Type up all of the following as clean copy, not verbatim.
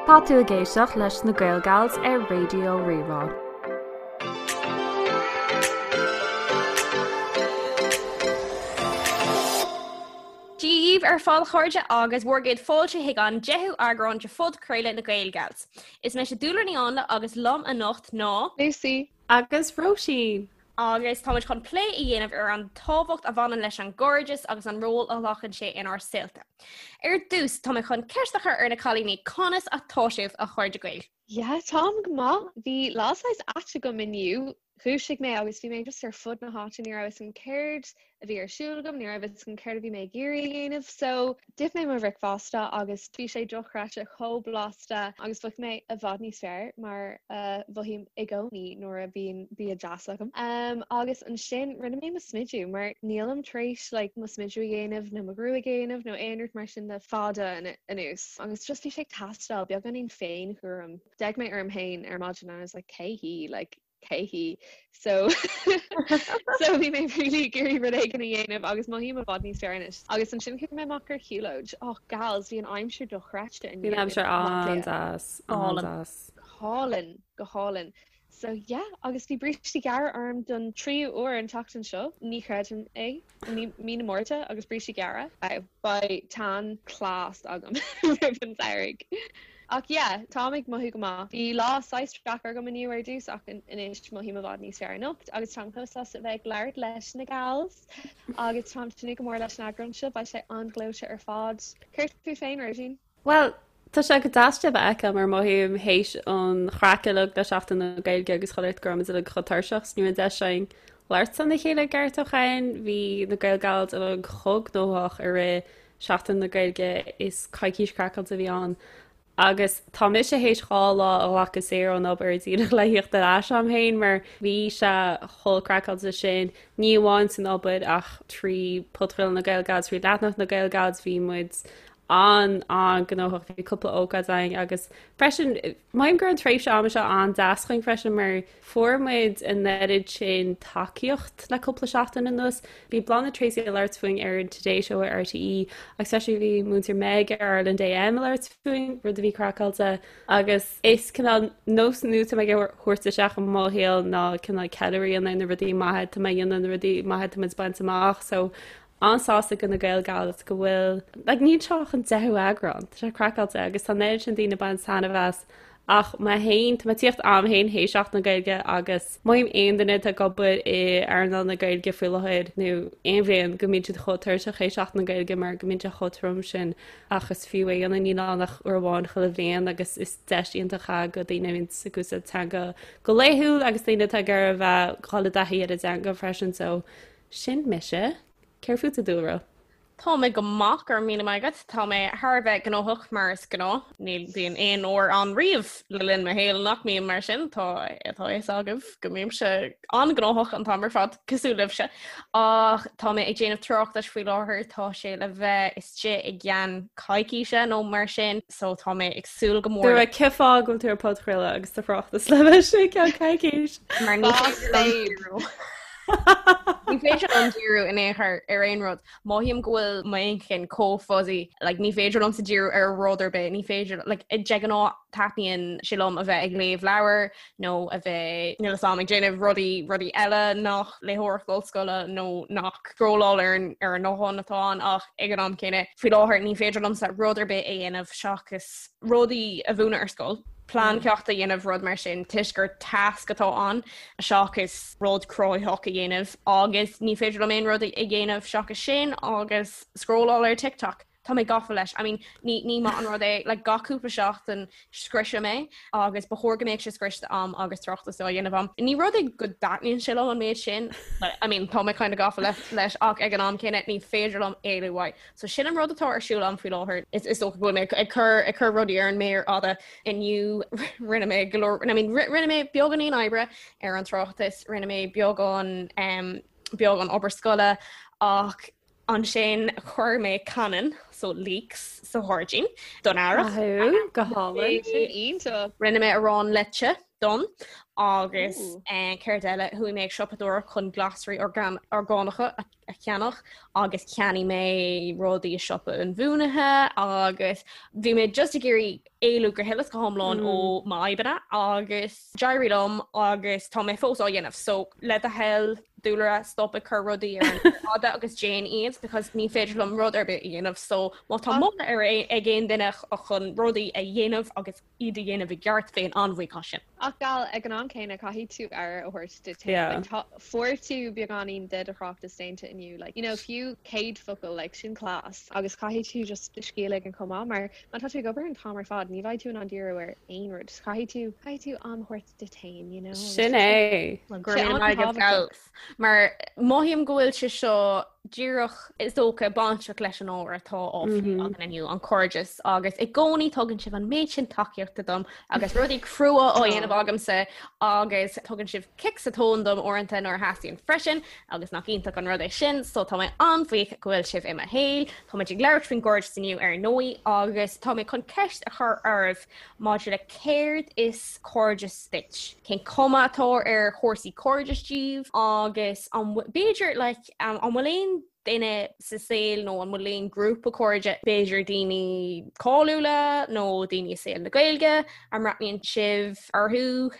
Tá tú ag éisteacht leis na Gaelgals ar Raidió Rí-Rá. Dia dhaoibh ar fad a chairde agus bhur gcéad fáilte chuig an deichiú eagrán de phodchraoladh na Gaelgals. Is mise Dúlra Ní Áinle agus liom anocht ná. Lucy. Agus Róisín. Agus táimid chun plé a dhéanamh ar an tábhacht a bhaineann leis an gcairdeas agus an ról a ghlacann sé inár saolta. Ar dtús, tá mé chun ceist a chur ar na cailíní, conas atá sibh, a chairde Gael? Yeah, táim go maith. Bhí lá saghas ait agam inniu. Dhúisigh mé agus bhí mé just ar fud na háite, ní raibh fhios agam céard a bhí ar siúl agam, ní raibh fhios agam céard a bhí mé ag iarraidh a dhéanamh. So, d'ith mé mo bhricfeasta agus bhí sé dochreidte chomh blasta agus mhothaigh mé i bhfad níos fearr mar a mhothaím i gcónaí nuair a bhíonn bia deas agam. Um, agus ansin rinne mé mo smidiú mar nílim tar éis like, mo smidiú a dhéanamh nó mo ghruaig a dhéanamh nó aon rud mar sin le fada anuas. Agus just bhí sé ag teastáil beagáinín féinchúram. D'fhéach mé orm féin ar maidin and I was like cé hí? Like, cé hí? So so bhí mé really ag iarraidh rud éigin a dhéanamh agus mothaím i bhfad níos fearr anois. Agus ansin chuaigh mé amach ar shiúlóid. Oh gals, bhí an aimsir dochreidte inniu. Bhí an aimsir an-deas, an-deas. Go hálainn, go hálainn. So yeah, agus bhí brístí gearra orm don tríú uair an tseachtain seo. Ní chreidim é. Mí na Márta agus brístí gearra. Beidh tan class agam roimh an samhradh. Ach yeah, táim ag mothú go maith. Bhí lá saghas deacair agam inniu ar dtús ach anois mothaím i bhfad níos fearr anocht agus táim chomh sásta a bheith ag labhairt leis na gals agus táim ag tnúth go mór leis an eagrán seo, beidh sé an-ghleoite ar fad. Céard fút féin, Róisín? Bhuel, tá sé go deas sibh a fheiceáil mar mothaím théis an chraic uilig le Seachtain na Gaeilge agus chuile shórt go raibh muid uilig chomh tuirseach 's ní raibh deis againn labhairt lena chéile i gceart ó shin. Bhí na Gaelgals uilig chomh gnóthach i rith Seachtain na Gaeilge is coicís craiceáilte a bhí ann agus tá mise théis 2 lá a ghlacadh saor ón obair díreach le thíocht ar ais a'm féin mar bhí sé chomh craiceáilte sin, ní amháin san obair ach trí podchraoladh na Gaelgals, trí leathanach na Gaelgals, bhí muid an-an-ghnóthach, bhí cúpla ócáid againn agus freisin mothaím go raibh an tréimhse ama seo an-deas chugainn freisin mar Fuair muid an oiread sin tacaíocht le cúpla seachtain anuas. Bhí Bláthnaid Treacy ag labhairt fúinn ar an Today Show ar RTÉ agus freisin bhí Múinteoir Meg ar Ireland AM ag labhairt fúinn, rud a bhí craiceáilte. Agus is cineál nós nua atá mé ag thabhairt isteach i mo shaol ná cineál ceiliúradh a dhéanamh ar na rudaí maithe atá mé a dhéanamh, na rudaí maithe atá muid ag baint amach. So an-sásta go na Gaelgals go bhfuil, like níl seo ach an deichiú eagrán, tá sé craiceáilte agus tá an oiread sin daoine ag baint taitneamh as ach mé féin, tá mé ag tíocht a'm féin théis Seachtain na Gaeilge agus mothaím aon duine atá ag obair i earnáil na Gaeilge faoi láthair nó aon bhliain go mbíonn siad chomh tuirseach théis Seachtain na Gaeilge mar go mbíonn sé chomh trom sin ach is fiú é a dhéanamh, níl ann ach uair amháin chuile bhliain agus is deis iontach é go daoine a bhíonn ag úsáid teanga go laethúil agus daoine atá ag iarraidh a bheith ag dul i dtaithí ar an dteanga freisin so Sin mise. Céard fútsa, a Dúlra? Tá mé go maith, go raibh míle maith agat. Tá mé thar a bheith gnóthach mar is gnáth. Ní bhíonn aon uair ann riamh le linn mo shaoil nach mbím mar sin. Tá tá a fhios agaibh go mbímse an-ghnóthach an t-am ar fad, cosúil libhse. Ach tá mé ag déanamh tráchtais faoi láthair, tá sé le bheith istigh i gceann coicíse nó mar sin, so tá mé ag súil go mór. Dúlra, cén fáth go bhfuil tú ar podchraoladh agus do thráchtas le bheith istigh i gceann coicís? Mar ní féidir liom díriú. Ní féidir liom díriú in aon chor ar aon rud. Mothaím go bhfuil m'inchinn chomh fuzzy, like, ní féidir liomsa díriú ar rud ar bith, ní féidir, like, de ghnáth taitníonn sé liom a bheith ag léamh leabhar nó a bheith, níl a fhios agam, ag déanamh rudaí, rudaí eile nach léitheoireacht ollscoile nó nach scrolláil ar an, ar an nguthán atá ann ach ag an am céanna, faoi láthair ní féidir liomsa rud ar bith a dhéanamh seachas rudaí a mhúineadh ar scoil, plean ceachta a dhéanamh, rud mar sin, toisc gur tasc atá ann seachas rud cruthaitheach a dhéanamh agus ní féidir liom aon rud a dhéanamh seachas sin agus scrolláil ar TikTok. Tá mé gafa leis. I mean, ní, ní maith an rud é, like, gach cúpla seachtain scriosaim é agus ba chóir go mbeadh sé scriosta a'm agus tráchtas á dhéanamh a'm. Ní rud é go dtaitníonn sé liom an méid sin, but, I mean, tá mé kind of gafa leis ach ag an am céanna ní féidir liom éalú uaidh. So sin an rud atá ar siúl a'm faoi láthair. Is is dócha go bhfuil mé ag cur ag cur rudaí ar an méar fhada. Inniu rinne mé go leor I mean rinne mé beagáinín oibre ar an tráchtas, rinne mé beagán um, beagán obair scoile ach ansin chuir mé cannan so leeks sa ghairdín don earrach. Go hálainn. Sin iontach. Rinne mé arán leite. Done. Agus céard eile, chuaigh mé ag siopadóireacht chun glasraí orgánacha a cheannach agus cheannaigh mé rudaí i siopa inbhuanaithe agus bhí mé just ag iarraidh éalú go huile is go hiomlán ó m'fhadhbanna agus d'éirigh liom agus tá mé fós á dhéanamh. So le do thoil Dúlra stop ag cur rudaí ar an fhada agus déan iad because ní féidir liom rud ar bith a dhéanamh so má tá moladh ar ag aon duine chun rudaí a dhéanamh agus iad a dhéanamh i gceart, bheinn an-bhuíoch as sin. Ach gal, ag an am céanna, caithfidh tú aire a thabhairt duit féin. Like, tá, fuair tú beagáinín de do thráchtas déanta inniu, like, you know, fiú 100 focal, like, sin class. Agus caithfidh tú just do scíth a ligean chomh maith, mar má tá tú ag obair an t-am ar fad, ní bheidh tú in ann díriú ar aon rud. Caithfidh tú, caithfidh tú am a thabhairt duit féin, you know. Sin é. Well, go raibh míle maith agat, gals. Mar mothaím go bhfuil sé seo díreach is dócha bainteach leis an ábhar atá á phlé againn inniu, an cairdeas, agus i gcónaí tugann sibh an méid sin tacaíochta dom agus rudaí crua á dhéanamh agamsa agus tugann sibh cic sa tóin dom uaireanta nuair a theastaíonn freisin agus nach iontach an rud é sin, so tá mé an-bhuíoch go bhfuil sibh i mo shaol. Táimid ag labhairt faoin gcairdeas inniu ar ndóigh agus tá mé chun ceist a chur oraibh maidir le céard is cairdeas duit, cén cuma atá ar chúrsaí cairdis daoibh agus an b'fhéidir like an bhfuil aon duine sa saol nó an bhfuil aon grúpa cairde, b'fhéidir daoine cáiliúla nó daoine i saol na Gaeilge a mbreathnaíonn sibh orthu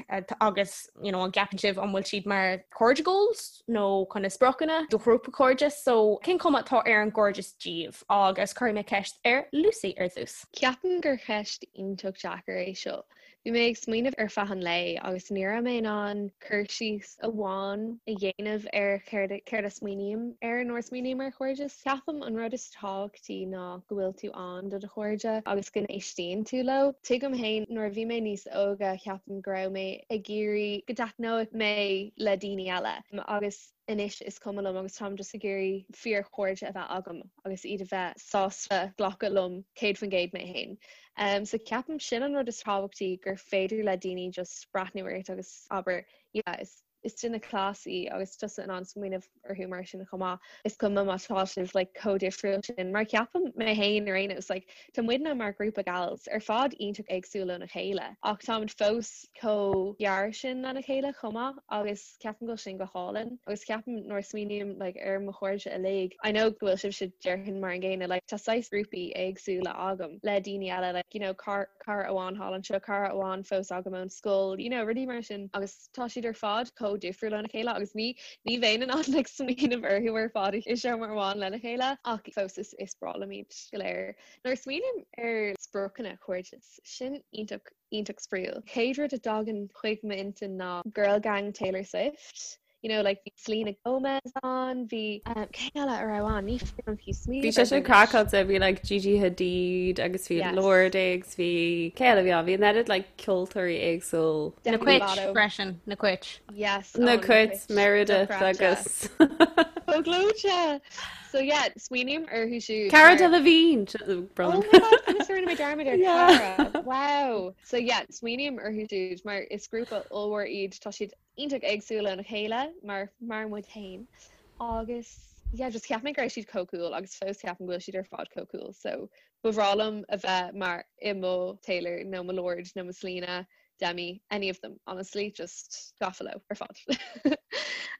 agus you know, an gceapann sibh an bhfuil siad mar cairde goals nó kind of spriocanna do ghrúpa cairde so cén cuma atá ar an gcairdeas daoibh agus cuirfidh mé ceist ar Lucy ar dtús. Ceapaim gur cheist iontach deacair é seo. Bhí mé ag smaoineamh ar feadh an lae agus ní raibh mé in ann cur síos amháin a dhéanamh ar céard céard a smaoiním air nuair a smaoiním ar chairdeas. Ceapaim an rud is tábhachtaí ná go bhfuil tú ann do do chairde agus go n-éistíonn tú leo. Tuigim féin nuair a bhí mé níos óige ceapaim go raibh mé ag iarraidh go dtaitneodh mé le daoine eile agus anois is cuma liom agus táim just ag iarraidh fíorchairde a bheith agam agus iad a bheith sásta glacadh liom 100% mé féin. Um, so ceapaim sin an rud is tábhachtaí gur féidir le daoine just breathnú ort agus abair yeah, is is duine class í agus tusa in ann smaoineamh orthu mar sin chomh maith. Is cuma má tá sibh like, chomh difriúil sin mar ceapaim mé féin ar aon nós like, tá muidne mar ghrúpa gals ar fad iontach éagsúil óna chéile ach táimid fós chomh gearr sin lena chéile chomh maith agus ceapaim go bhfuil sin go hálainn agus ceapaim nuair a smaoiním like ar mo chairde uilig I know go bhfuil sibhse déarfainn mar an gcéanna like tá saghas grúpaí éagsúla agam le daoine eile like you know cara cara amháin thall anseo cara amháin fós agam ón scoil you know rudaí mar sin agus tá siad ar fad chomh difriúil óna chéile agus ní ní bheinn in ann like smaoineamh orthu ar fad i seomra amháin lena chéile ach fós is is breá liom iad go léir. Nuair a smaoiním ar spriocanna cairdeas sin iontach iontach spraíúil. Chéad rud a dtagann chuig m'intinn ná Girl Gang Taylor Swift. You know, like bhí Selena Gomez ann, bhí um, cé eile a raibh ann? Ní féidir liom fiú smaoineamh Bhí sé sin craiceáilte, bhí like Gigi Hadid agus bhí yes. Lorde agus bhí cé eile bhí ann? Bhí an oiread like ceoltóirí éagsúil. Na Cait freisin, na Cait. Yes, Na Cait, Meredith agus Chomh gleoite! So yeah, smaoiním orthu siúd. Cara Delevingne! Oh my god, conas a rinne mé dearmad ar Cara. Wow! So yeah, smaoiním orthu siúd mar is grúpa ollmhór iad, tá siad iontach éagsúil óna chéile mar mar muid féin. Agus yeah, just cheap mé go raibh siad chomh cool agus fós ceapaim go bhfuil siad ar fad chomh cool. So ba bhreá liom a bheith mar i mo Taylor nó mo Lorde nó mo Selena Demi, any of them, honestly, just gafa leo ar fad.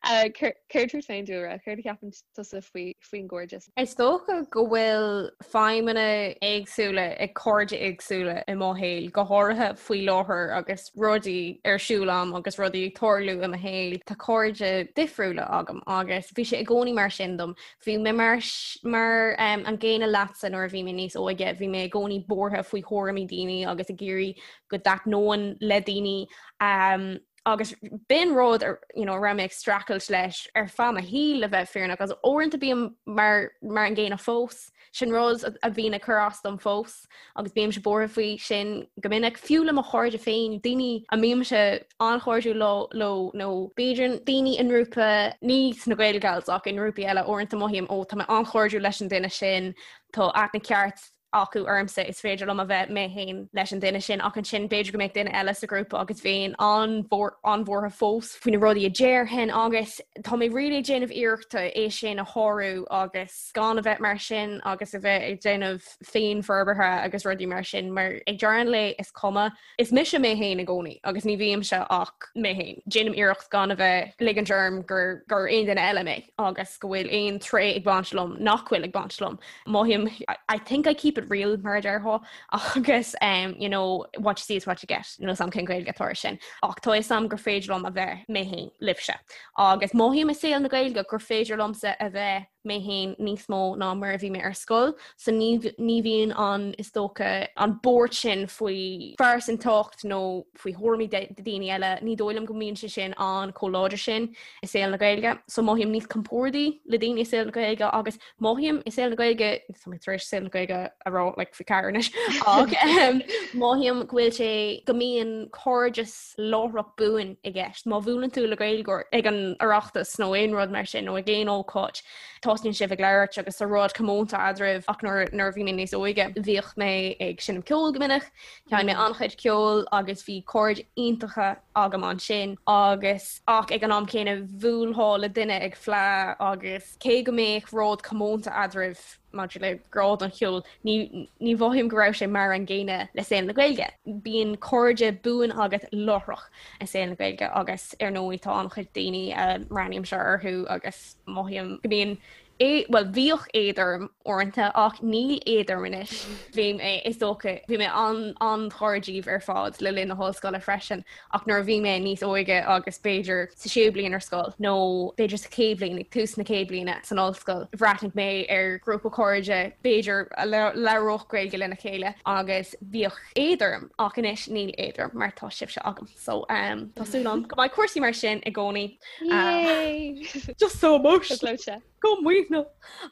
Céard fút féin Dúlra, céard a cheapann tusa faoi faoin gcairdeas? Is dócha go bhfuil feidhmeanna éagsúla ag cairde éagsúla i mo shaol, go háirithe faoi láthair agus rudaí ar siúl agam agus rudaí ag tarlú i mo shaol. Tá cairde difriúla agam agus bhí sé i gcónaí mar sin dom. Bhí mé mar mar an gcéanna leatsa nuair a bhí mé níos óige, bhí mé i gcónaí buartha faoi thuairimí daoine agus ag iarraidh go dtaitneoinn le daoine um, agus b'in rud you know, raibh mé ag streachailt leis ar feadh mo shaoil le bheith fírinneach agus uaireanta bím mar, mar an gcéanna fós sin rud a bhíonn ag cur as dom fós agus bímse buartha faoi sin go minic fiú le mo chairde féin daoine a mbímse an-chairdiúil leo leo nó b'fhéidir daoine i ngrúpa ní sna Gael Gals ach i ngrúpaí eile uaireanta mothaím ó tá mé an-chairdiúil leis an duine sin tá aithne ceart acu ormsa is féidir liom a bheith mé féin leis an duine sin ach ansin b'fhéidir go mbeadh duine eile sa ghrúpa agus bheinn an-bhuartha fós faoi na rudaí a déarfainn agus tá mé really ag déanamh iarrachta é sin a shárú agus gan a bheith mar sin agus a bheith ag déanamh féinfhorbartha agus rudaí mar sin mar ag deireadh an lae is cuma Is mise mé féin i gcónaí agus ní bhímse ach mé féin. Déanaim iarracht gan a bheith ligint orm gur gur aon duine eile mé agus go bhfuil aon tréith ag baint liom nach bhfuil ag baint liom. Mothaím I think I keep it real mar a déarfá agus um, you know, what you see is what you get. Níl a fhios agam cén Ghaeilge atá air sin. Ach tá a fhios agam gur féidir liom a bheith mé féin libhse. Agus mothaím i saol na Gaeilge gur féidir liomsa a bheith mé féin níos mó ná mar a bhí mé ar scoil, so ní ní bhíonn an, is dócha, an buairt sin faoi phearsantacht nó faoi thuairimí daoine eile, ní dóigh liom go mbíonn sé sin ann chomh láidir sin i saol na Gaeilge. So mothaím níos compórdaí le daoine i saol na Gaeilge agus mothaím i saol na Gaeilge, tá mé tar éis saol na Gaeilge a rá like faoi cheathair anois, ach mothaím go bhfuil sé, go mbíonn cairdeas láithreach buan i gceist. Má bhuaileann tú le Gaeilgeoir ag an Oireachtas nó aon rud mar sin nó ag aon ócáid, tosnaíonn sibh ag labhairt agus tá rud comónta eadraibh ach nuair nuair a bhí mé níos óige bhíodh mé ag seinm ceoil go minic, sheinn mé an-chuid ceoil agus bhí cairde iontacha agam ansin agus ach ag an am céanna bhuailfeá le duine ag fleá agus cé go mbeadh rud comónta eadraibh maidir le grá don cheol, ní mhothaím go raibh sé mar an gcéanna le saol na Gaeilge. Bíonn cairde buan agat láithreach i saol na Gaeilge agus ar ndóigh tá an-chuid daoine a mbreathnaímse orthu agus mothaím go mbíonn bhuel bhíodh éad orm uaireanta ach níl éad orm anois. Bhí mé, is dócha, bhí mé an-ghar díbh ar fad le linn na hollscoile freisin Ach nuair a bhí mé níos óige agus b'fhéidir sa séú bliain ar scoil nó b'fhéidir sa chéad bhliain, ag tús na chéad bliana san ollscoil, bhreathnaigh mé ar ghrúpa cairde b'fhéidir a labhródh Gaeilge lena chéile agus bhíodh éad orm ach anois níl éad orm mar tá sibhse agam. So um, tá súil agam go mbeidh cúrsaí mar sin i gcónaí. Yay! Just so emotional. Go maoithneach.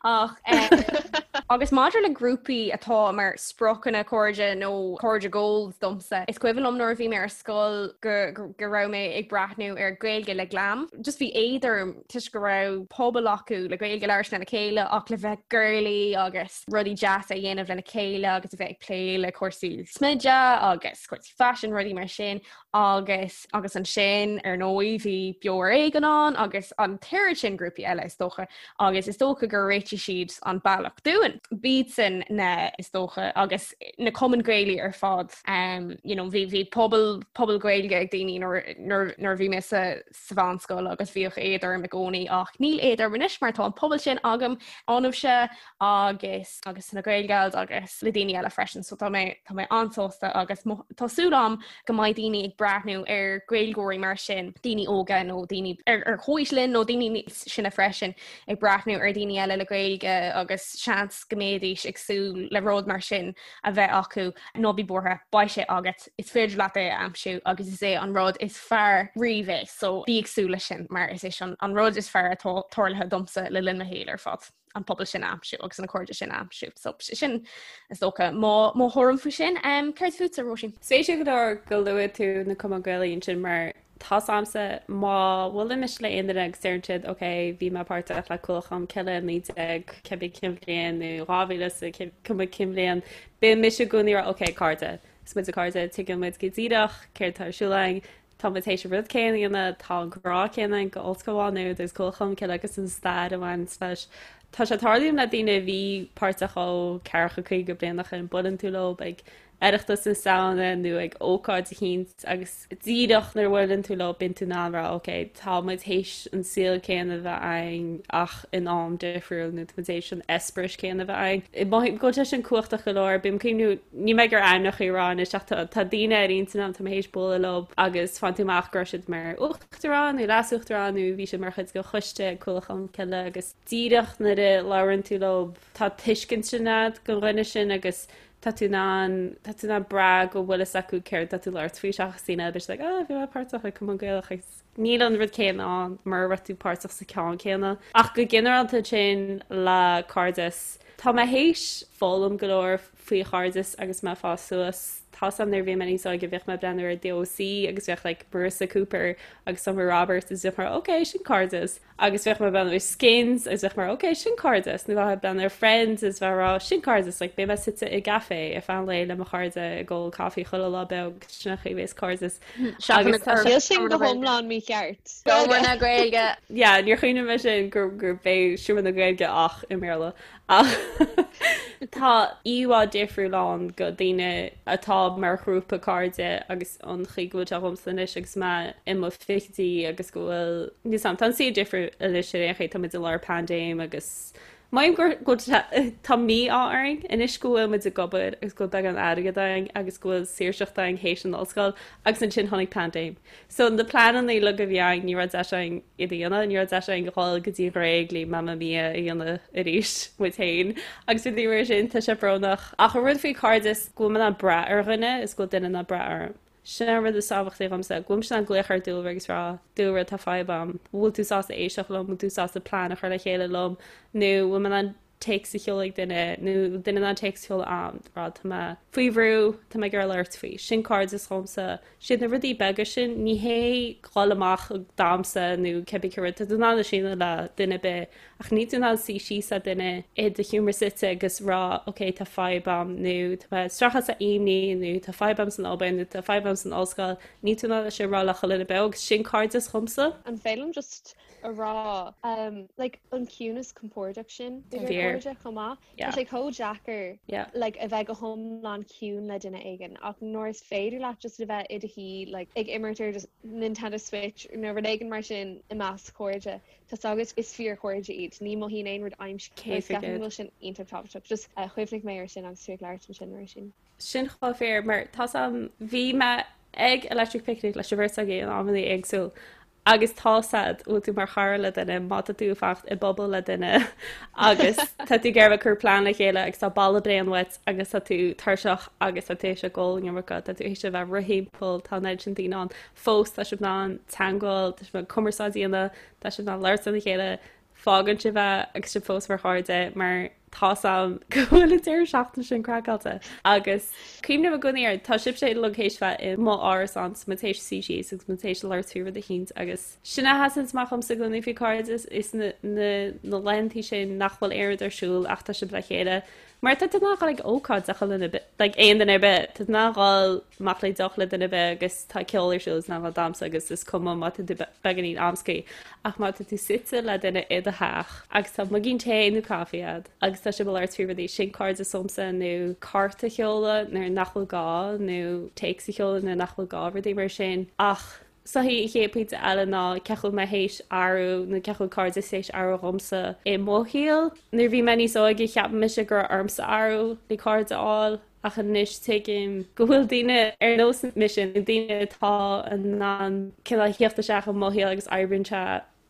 Ach agus maidir le grúpaí atá mar spriocanna cairde nó cairde goals domsa, is cuimhin liom nuair a bhí mé ar scoil go go raibh mé ag breathnú ar Gaeilge le Glam. Just bhí éad orm toisc go raibh pobal acu le Gaeilge a labhairt lena chéile ach le bheith girly agus rudaí deasa a dhéanamh lena chéile agus a bheith ag plé le cúrsaí smididh agus cúrsaí faisin rudaí mar sin agus agus ansin ar ndóigh bhí Beo ar Éigean ann agus an t-oiread sin grúpaí eile is dócha agus is dócha gur réitigh siad an bealach dúinn. B'iadsan na is dócha agus na cumainn Gaelaí ar fad um, you know, bhí bhí pobal pobal Gaeilge ag daoine nuair nuair nuair a bhí mé sa sa mheánscoil agus bhíodh éad orm i gcónaí ach níl éad orm anois mar tá an pobal sin agam ionaibhse agus agus na Gaelgals agus le daoine eile freisin so tá mé tá mé an-sásta agus tá súil agam go mbeidh daoine ag breathnú ar Gaeilgeoirí mar sin, daoine óga nó daoine ar ar chomhaois linn nó daoine níos sine freisin ag breathnú ar daoine eile le Gaeilge agus seans go mbeidís ag súil le rud mar sin a bheith acu ná bí buartha, beidh sé agat, is féidir leat é a aimsiú agus is é an rud is fearr riamh é so bí ag súil leis sin mar is é sin an rud is fearr atá tarlaithe domsa le linn mo shaoil ar fad. an pobal sin a aimsiú agus na cairde sin a aimsiú. So sin is dócha mo mo thuairim faoi sin. Um, céard fútsa Róisín? Spéisiúil go leor go luaigh tú na cumainn Gaelaí ansin mar tá 's a'msa má bhuailimse le aon duine agus deireann siad ok bhí mé páirteach le Cualann Cholm Cille 19 cibé cén bhliain nó 2000 sa cuma cén bhliain bíonn mise i gcónaí ag rá ok cairde is muid cairde tuigeann muid go díreach céard tá ar siúl againn Tá muid théis an rud céanna a dhéanamh, tá an grá céanna againn go Ollscoil Mhá Nuad agus Cualann Cholm Cille agus an stair a bhaineanns leis. Tá sé ag tarlú le daoine a bhí páirteach ó ceathracha 50 bliain ó shin, buaileann tú leo ag Oireachtas na Samhna nó ag ócáid eicínt agus díreach nuair a bhuaileann tú leo bíonn tú in ann rá ok tá muid théis an saol céanna a bheith againn ach in am difriúil nó tá muid théis an eispéireas céanna a bheith againn. Mothaím go bhfuil sé sin cumhachtach go leor, bím ag cuimhniú Níl mé ag iarraidh ainmneacha a rá anois ach tá daoine ar intinn agam, tá mé théis bualadh leo agus faigheann tú amach go raibh siad mar uachtarán nó leas-uachtarán nó bhí siad mar chuid de choiste ag Cualann Cholm Cille agus díreach nuair a labhrann tú leo tá tuiscint sin agat don dhuine sin agus tá tú in ann tá tú in ann brath go bhfuil fhios acu céard tá tú labhairt faoi seachas daoine eile like oh bhí mé páirteach i Cumann Gaelach agus níl an rud céanna ann mura raibh tú páirteach sa ceann céanna. Ach go ginearálta ansin le cairdeas tá mé théis foghlaim go leor faoi chairdeas agus mé ag fás suas. Tá's a'm nuair a bhí mé níos óige bhíodh mé ag breathnú ar The OC agus bheadh like Marissa Cooper agus Summer Roberts is bheadh mar ok sin cairdeas agus bheadh mé ag breathnú ar Skins agus bheadh mar ok sin cairdeas nó bheadh ag breathnú ar Friends is bheadh rá sin cairdeas like beidh mé suite i gcaife ar feadh an lae le mo chairde ag ól caife chuile lá beag sin an chaoi a bheas cairdeas Agus tá sé sin go hiomlán mícheart. Seomra na Gaeilge. Yeah, níor chuimhnigh mé sin gur gur b'é Seomra na Gaeilge ach i mBéarla. Ach tá íomhá difriúil ann go daoine atá mar ghrúpa cairde agus an chaoi go bhfuil sé dhomsa anois agus mé i mo fichidí agus go bhfuil níl 's a'm, tá an saol difriúil anois ar aon chaoi, tá muid i lár paindéim agus Mothaím gur go bhfuil tá mí-ádh orainn anois go bhfuil muid ag obair agus go bhfuil beagán airgead againn agus go bhfuil saoirseacht againn théis an ollscoil agus ansin tháinig paindéim. So na pleananna uilig a bhí againn ní raibh deis againn iad a dhéanamh, ní raibh deis againn dhul go dtí an Ghréig le Mamma Mia a dhéanamh arís muid féin agus rudaí mar sin, tá sé brónach. Ach an rud faoi cairdeas go bhfuil mé in ann brath ar dhuine is go bhfuil duine in ann brath orm. Sin an rud is tábhachtaí dhomsa, go bhfuilimse in ann glaoch ar Dúlra agus rá, Dúlra, tá fadhb a'm, bhfuil tú sásta éisteacht liom, bhfuil tú sásta plean a chur le chéile liom, nó bhfuil mé in ann téacs a sheoladh ag duine, nó bhfuil duine in ann téacs a sheoladh a'm, rá tá mé faoi bhrú, tá mé ag iarraidh labhairt faoi. Sin cairdeas dhomsa. Siad na rudaí beaga sin, ní hé dhul amach ag damhsa nó cibé cé rud, tá tú in ann é sin a dhéanamh le duine ar bith, Ach níl tú in ann suí síos le duine i do sheomra suite agus rá ok tá fadhb a'm nó tá mé ag streachailt le imní nó tá fadhb a'm san obair nó tá fadhb a'm san ollscoil, níl tú in ann é sin a rá le chuile dhuine beo agus sin cairdeas dhomsa. An féidir liom just a rá um, like, an ciúnas compordach sin idir cairde chomh maith? Tá sé chomh deacair like, a bheith go hiomlán ciúin le duine éigin ach nuair is féidir leat just a bheith i do shuí like, ag imirt ar Nintendo Switch nó rud éigin mar sin i measc cairde Tá's agat is fíorchairde iad, ní mothaíonn aon rud aimsithe agus ceapaim go bhfuil sin iontach tábhachtach. Just chuimhnigh mé ar sin agus tú ag labhairt ansin Róisín. Sin chomh fíor mar tá's a'm bhí mé ag Electric Picnic leis an bheirt agaibh in amanna éagsúil agus tá's a'd bhfuil tú mar chara le duine má tá tú ag fanacht i bpuball le duine agus tá tú ag iarraidh cur plean le chéile agus tá boladh bréan uait agus tá tú tuirseach agus tá tú théis ag ól an iomarca tá tú théis a bheith ag rith thimpeall tá an oiread sin daoine ann fós tá sibh in ann teagmháil, tá sibh in ann cumarsáid a dhéanamh, tá sibh in ann labhairt lena chéile, fágann sibh é agus sibh fós mar chairde mar tá's a'm go bhfuil an deireadh seachtaine sin craiceáilte. Agus cuimhním i gcónaí air, tá sibhse uilig théis bheith i mo árasán 's muid théis suí síos agus muid théis labhairt faoi rud eicínt agus sin a sheasann amach dhomsa i gcónaí faoi cairdeas is na na na laethantaí sin nach bhfuil aon rud ar siúl ach tá sibh le chéile Mar tá tú in ann dhul ag ócáid le chuile dhuine, like aon duine ar bith, tá tú in ann dhul amach le deoch le duine ar bith agus tá ceol ar siúl is in ann dhul damhsa agus is cuma má tá tú beagáinín amscaí ach má tá tú suite le duine i do theach agus tá muigín tae nó caife a'd agus tá sibh ag labhairt faoi rudaí, sin cairdeas dhomsa nó cárta a sheoladh nuair nach bhfuil gá nó téacs a sheoladh nuair nach bhfuil gá, rudaí mar sin ach So an chéad pointe eile ná cén chaoi a bhfuil mé théis athrú nó cén chaoi a bhfuil cairdeas théis athrú dhomsa i mo shaol. Nuair a bhí mé níos óige cheap mise go raibh ormsa athrú le cairde a fháil ach anois tuigim go bhfuil daoine ar nós mise nó daoine atá in ann cineál theacht isteach i mo shaol agus oibríonn sé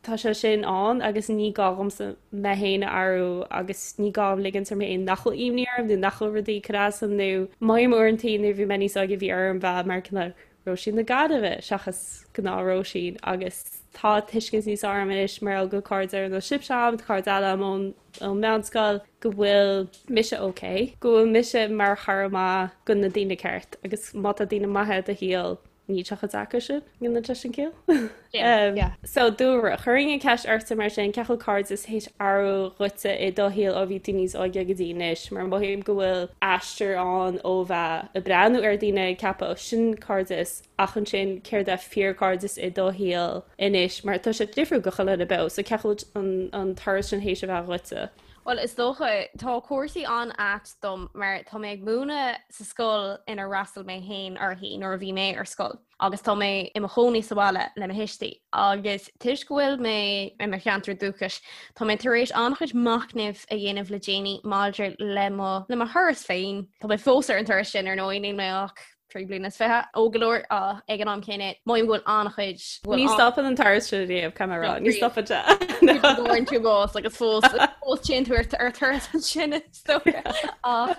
tá sé sin ann agus ní gá dhomsa mé féin a athrú agus ní gá dom ligint orm féin nach bhfuil imní orm nó nach bhfuil rudaí ag cur as dom nó mothaím uaireantaí nuair a bhí mé níos óige bhí orm bheith mar cineál Róisín na Gaillimhe seachas gnáth-Róisín agus tá tuiscint níos fearr agam anois mar gheall go bhfuil cairde ar nós sibhse agam, tá cairde eile agam ón ón meánscoil, go bhfuil mise ok, go bhfuil mise mar chara maith go na daoine ceart agus má tá daoine maithe i do shaol níl sé chomh deacair sin, an ndéanann sé sin ciall? Yeah. So Dúlra, chuirfinn an ceist ortsa mar sin, cén chaoi a bhfuil cairdeas théis athrú dhuitse i do shaol ó bhí tú níos óige go dtí anois, mar mothaím go bhfuil aistear ann ó bheith ag breathnú ar daoine ag ceapadh ó sin cairdeas ach ansin céard é fíorchairdeas i do shaol anois mar tá sé difriúil go chuile dhuine beo, so cén chaoi a bhfuil an turas sin théis a bheith dhuitse? Bhuel, is dócha, tá cúrsaí an-ait dom mar tá mé ag múineadh sa scoil inar fhreastail mé féin uirthi nuair a bhí mé ar scoil. agus tá mé i mo chónaí sa bhaile le mo thuistí agus toisc go bhfuil mé i mo cheantar dúchais, tá mé tar éis an-chuid machnaimh a dhéanamh le déanaí maidir le mo le mo thuras féin. Tá mé fós ar an turas sin ar ndóigh, níl mé ach 3 bliana is 20, óg go leor ach ag an am céanna mothaím go bhfuil an-chuid Ní stopann an turas sin riamh, caithfidh mé a rá, ní stopann sé. Bhfuair tú bás agus fós fós téann tú ar turas ansin is dócha. Ach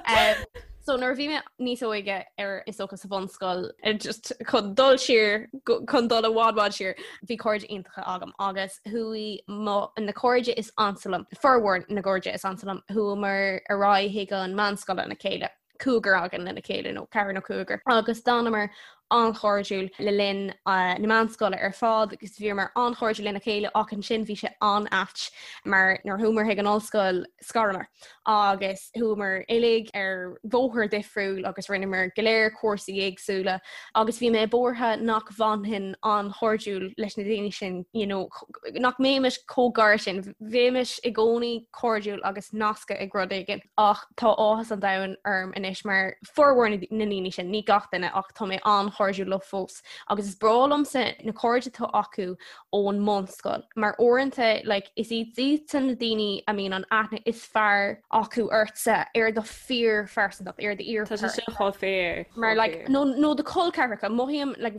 So nuair a bhí mé níos óige ar is dócha sa bhunscoil just chun dul siar chun dul i bhfad bhfad siar bhí cairde iontacha agam agus chuaigh mo na cairde is ansa liom formhór na gcairde is ansa liom chuamar ar aghaidh chuig an meánscoil lena chéile. Cúigear againn lena chéile nó ceathrar nó cúigear agus d'fhanamar an-chairdiúil le linn na meánscoile ar fad agus bhíomar an-chairdiúil lena chéile ach ansin bhí sé an-ait mar nuair chuamar chuig an ollscoil scaramar agus chuamar uilig ar bhóthar difriúil agus rinneamar go léir cúrsaí éagsúla agus bhí mé buartha nach bhfanfainn an-chairdiúil leis na daoine sin you know, nach mbeimis chomh gar sin, bheimis i gcónaí cairdiúil agus nasctha ag rud éigin ach tá áthas an domhain orm anois mar formhór na ndaoine sin, ní gach duine ach tá mé an-chairdiúil leo fós agus is breá liomsa na cairde atá acu ón mbunscoil mar uaireanta like, is iad iadsan na daoine a mbíonn an aithne is fearr acu ortsa ar do fíorphearsantacht ar do fhíor Tá sé sin chomh fíor. Mar like, nó, nó do chol ceathracha mothaím like,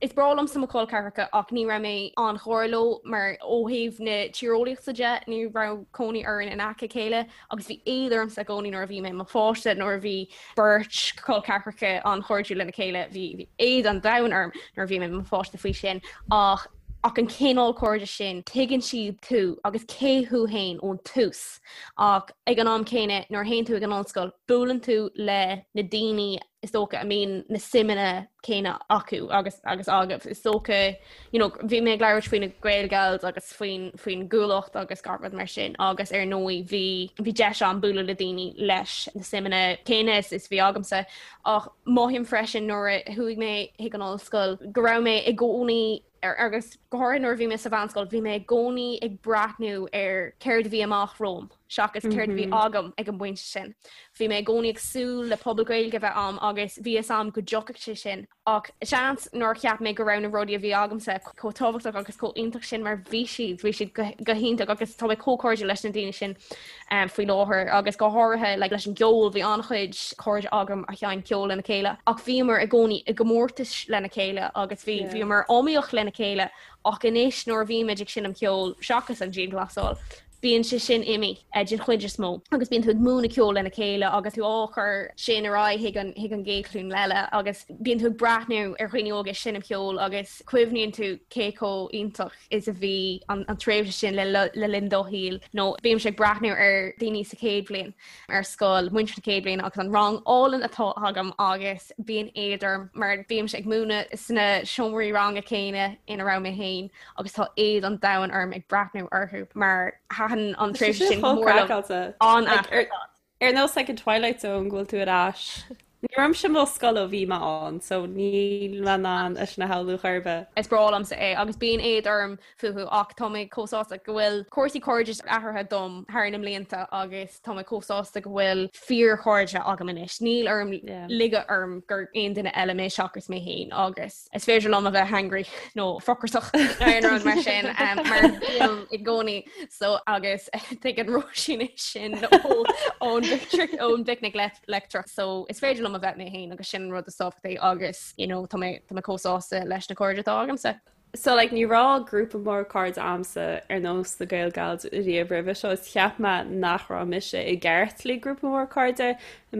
is breá liomsa mo chol ceathracha ach ní raibh mé an-ghar leo mar ó thaobh na tíreolaíochta de ní raibh cónaí orainn in aice a chéile agus bhí éad ormsa i gcónaí nuair a bhí mé i mo pháiste nuair a bhí beirt chol ceathracha an-chairdiúil lena chéile bhí éad an domhain orm nuair a bhí mé i mo pháiste faoi sin ach ach an cineál cairde sin tuigeann siad tú agus cé thú féin ón tús ach ag an am céanna nuair a théann tú ag an ollscoil buaileann tú le na daoine is dócha a mbíonn na suimeanna céanna acu agus agus agaibh. Is dócha you know, bhí mé ag labhairt faoi na Gaelgals agus faoin faoin gCuallacht agus gach rud mar sin agus ar ndóigh bhí bhí deis agam bualadh le daoine leis na suimeanna céanna is is bhí agamsa ach mothaím freisin nuair a chuaigh mé chuig an ollscoil go raibh mé i gcónaí agus go háirithe nuair a bhí mé sa mheánscoil, bhí mé i gcónaí ag breathnú ar céard a bhí amach romham seachas céard a bhí agam ag an bpointe sin. Bhí mé i gcónaí ag súil le pobal Gaeilge a bheith a'm agus bhí fhios a'm go dtiocfadh sé sin ach seans nár cheap mé go raibh na rudaí a bhí agamsa chomh tábhachtach agus chomh iontach sin mar bhí siad, bhí siad go hiontach agus tá mé chomh cairdiúil leis na daoine sin faoi láthair agus go háirithe like, leis an gceol bhí an-chuid cairde agam a sheinn ceol lena chéile ach bhíomar i gcónaí i gcomórtais lena chéile agus bhí yeah. bhíomar iomaíoch lena chéile ach anois nuair a bhímid ag seinm ceol seachas an dianghlasáil bíonn sé sin imithe eh, den chuid is mó agus bíonn tú ag múineadh ceol lena chéile agus tú á chur sin ar aghaidh chuig an chuig an gcéad ghlúin eile agus bíonn tú ag breathnú ar dhaoine óga ag seinm ceol agus cuimhníonn tú cé chomh iontach is a bhí an tréimhse sin le linn do shaoil nó bímse ag breathnú ar daoine sa chéad bhliain ar scoil, muintir na chéad bhliana agus an rang álainn atá agam agus bíonn éad orm mar bímse ag múineadh sna seomraí ranga céanna ina raibh mé féin agus tá éad an domhain orm ag breathnú orthu mar thaitin an tréimhse sin go mór liom. An-ait. Ar nós like an Twilight Zone go bhfuil tú ar ais. Ní raibh mise i mo scoil ó bhí mé ann, so níl mé in ann é sin a shamhlú chor ar bith. Is breá liomsa é agus bíonn éad orm fúthu ach tá mé chomh sásta go bhfuil cúrsaí cairdis athraithe dom thar na mblianta agus tá mé chomh sásta go bhfuil fíorchairde agam anois. Níl orm ligeadh orm gur aon duine eile mé seachas mé féin agus is féidir liom a bheith hangry nó frucrasach nó aon rud mar sin mar bím i gcónaí so agus tuigeann Róisín é sin ón ón bPicnic Leictreach so is féidir liom a bheith mé féin agus sin an rud is tábhachtaí agus you know, tá mé tá mé chomh sásta leis na cairde atá agamsa. So like ní raibh grúpa mór cairde a'msa ar nós na Gaelgals riamh roimhe seo is cheap mé nach raibh mise i gceart le grúpa mór cairde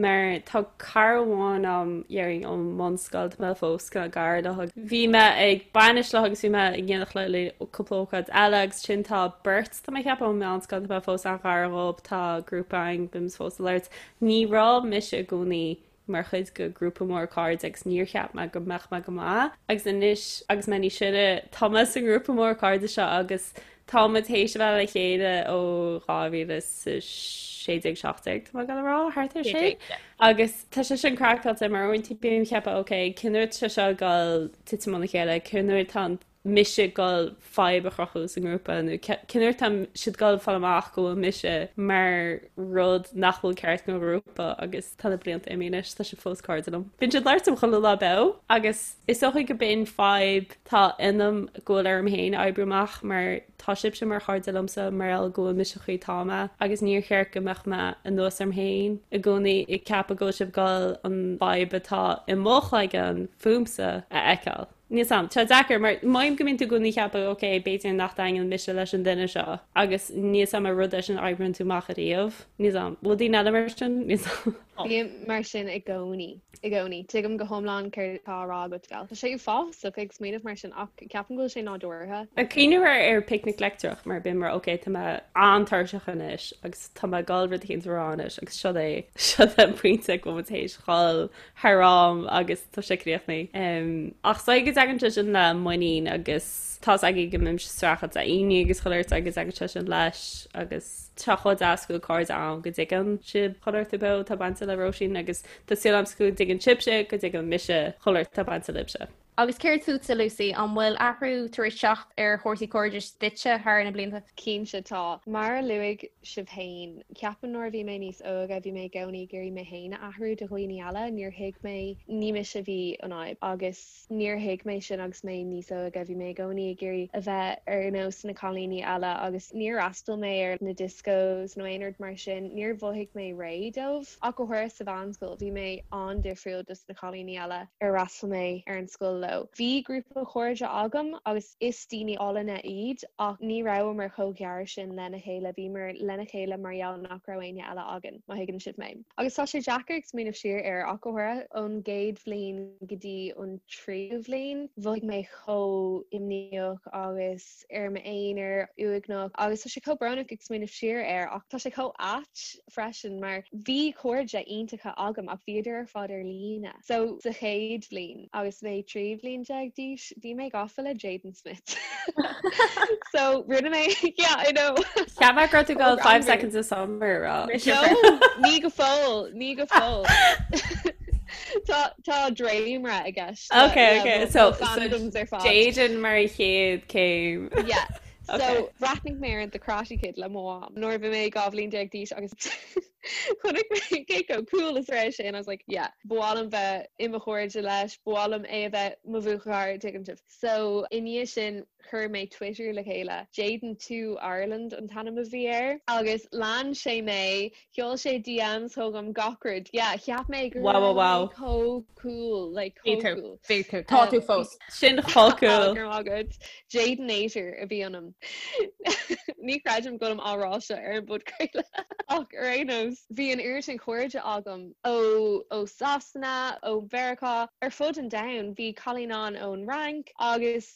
mar tá cara amháin a'm déarfainn ón mbunscoil tá mé fós cineál gar léi. Bhí mé ag bainis léi agus bhí mé in éineacht léi le cúpla ócáid eile agus ansin tá beirt tá mé ag ceapadh ón meánscoil tá mé fós an-ghar dhób tá grúpa againn bímid fós ag labhairt. Ní raibh mise i gcónaí mar chuid de ghrúpa mór cairde agus níor cheap mé go mbeadh mé go maith agus anois agus mé níos sine tá mé sa ngrúpa mór cairde seo agus tá muid théis a bheith le chéile ó 2016 17 tá mé ag dul a rá thart ar sin agus tá sé sin craiceáilte mar uaireanta bím ag ceapadh ok cén uair atá sé seo ag dul titim óna chéile cén uair atá an mise ag dul fadhb a chruthú sa ngrúpa nó cén uair atá siad ag dul fáil amach go bhfuil mise mar rud nach bhfuil ceart don ghrúpa agus tá na blianta imithe anois, tá siad fós cairde liom. Bíonn siad ag labhairt liom chuile lá beo agus is dócha go b'in fadhb tá ionam go bhfuil orm féin a oibriú amach mar tá sibhse mar chairde liomsa mar gheall go bhfuil mise an chaoi atá mé agus níor cheart go mbeadh mé anuas orm féin i gcónaí ag ceapadh go bhfuil sibh ag dul an fhadhb atá i mo chloigeann fúmsa a fheiceáil. Níl 's a'm. Tá sé deacair mar mothaím go mbíonn tú i gcónaí ag ceapadh ok, b'fhéidir nach dtaitníonn mise leis an duine seo agus níl 's a'm ar rud é sin a oibríonn tú amach ariamh. Níl 's a'm. Bhfuil daoine eile mar sin? Níl 's a'm. Bím mar sin i gcónaí, i gcónaí. Tuigim go hiomlán céard atá á rá agat, Gal. Tá sé uafásach ag smaoineamh mar sin ach ceapaim go bhfuil sé nádúrtha. Ag cuimhneamh ar ar picnic leictreach mar bím mar ok tá mé an-tuirseach anois agus tá mé ag dul rud éicint a rá anois agus seo é seo é an pointe go bhfuil muid théis dhul thar am agus tá sé críochnaithe. Ach is dóigh go dtagann sé sin le muinín agus tá's agaibh go mbímse ag streachailt le imní agus chuile shórt agus tagann sé sin leis agus tá chomh deas go bhfuil cairde ann go dtuigeann sibh chuile shórt beo atá bainte le Róisín agus tá súil agam go dtuigeann sibhse go dtuigeann mise chuile shórt atá bainte libhse. Agus céard fútsa, Lucy, an bhfuil athrú tar éis teacht ar chúrsaí cairdis duitse thar na blianta? Cinnte tá. Mar a luaigh sibh féin, ceapaim nuair a bhí mé níos óige bhí mé i gcónaí ag iarraidh mé féin a athrú do dhaoine eile, níor thuig mé, ní mise a bhí an fhadhb agus níor thuig mé sin agus mé níos óige, bhí mé i gcónaí ag iarraidh a bheith ar nós na cailíní eile agus níor fhreastail mé ar na discos nó aon rud mar sin, níor mhothaigh mé réidh dóibh. Ach go háirithe sa mheánscoil, bhí mé an-difriúil dos na cailíní eile ar fhreastail mé ar an scoil leo. Bhí grúpa cairde agam agus is daoine álainne iad ach ní rabhamar chomh gearr sin lena chéile, bhíomar lena chéile mar gheall nach raibh éinne eile againn, má thuigeann sibh mé. Agus tá sé deacair ag smaoineamh siar air ach go háirithe ón gcéad bhliain go dtí an tríú bhliain, mhothaigh mé chomh imníoch agus ar m'aonar, uaigneach agus tá sé chomh brónach ag smaoineamh siar air ach tá sé chomh ait freisin mar bhí cairde iontacha agam ach bhíodar ar fad ar líne. So sa chéad bhliain agus mé 13 bhliain d'aois bhí mé gafa le Jaden Smith. So rinne mé yeah I know. Cheap mé go raibh tú ag dul 5 seconds of summer a rá. No, ní go fóill, ní go fóill. Tá tá dréimire i gceist. Ok ok so Jaden mar an chéad céim. Yeah. So bhreathnaigh mé ar The Karate Kid le mo mham nuair a bhí mé 12 bhliain d'aois agus chonaic mé cé chomh cool is a raibh sé and I was like yeah, ba mhaith liom bheith i mo chairde leis, ba mhaith liom é a bheith mo bhuachaill, tuigeann sibh. So i ndiaidh sin chuir mé Twitter le chéile, Jaden 2 Ireland an t-ainm a bhí air agus lean sé mé, sheol sé DMs chugam gach rud, yeah, cheap mé go raibh mé chomh cool, like chomh cool. Bhí tú, tá tú fós. Sin chomh cool. Go raibh maith agat. Jadenator a bhí ionam. Ní chreidim go bhfuilim á rá seo ar an bpodchraoladh ach ar aon nós, bhí an oiread sin cairde agam ó ó Sasana, ó Mheiriceá, ar fud an domhain. Bhí cailín ann ón Fhrainc agus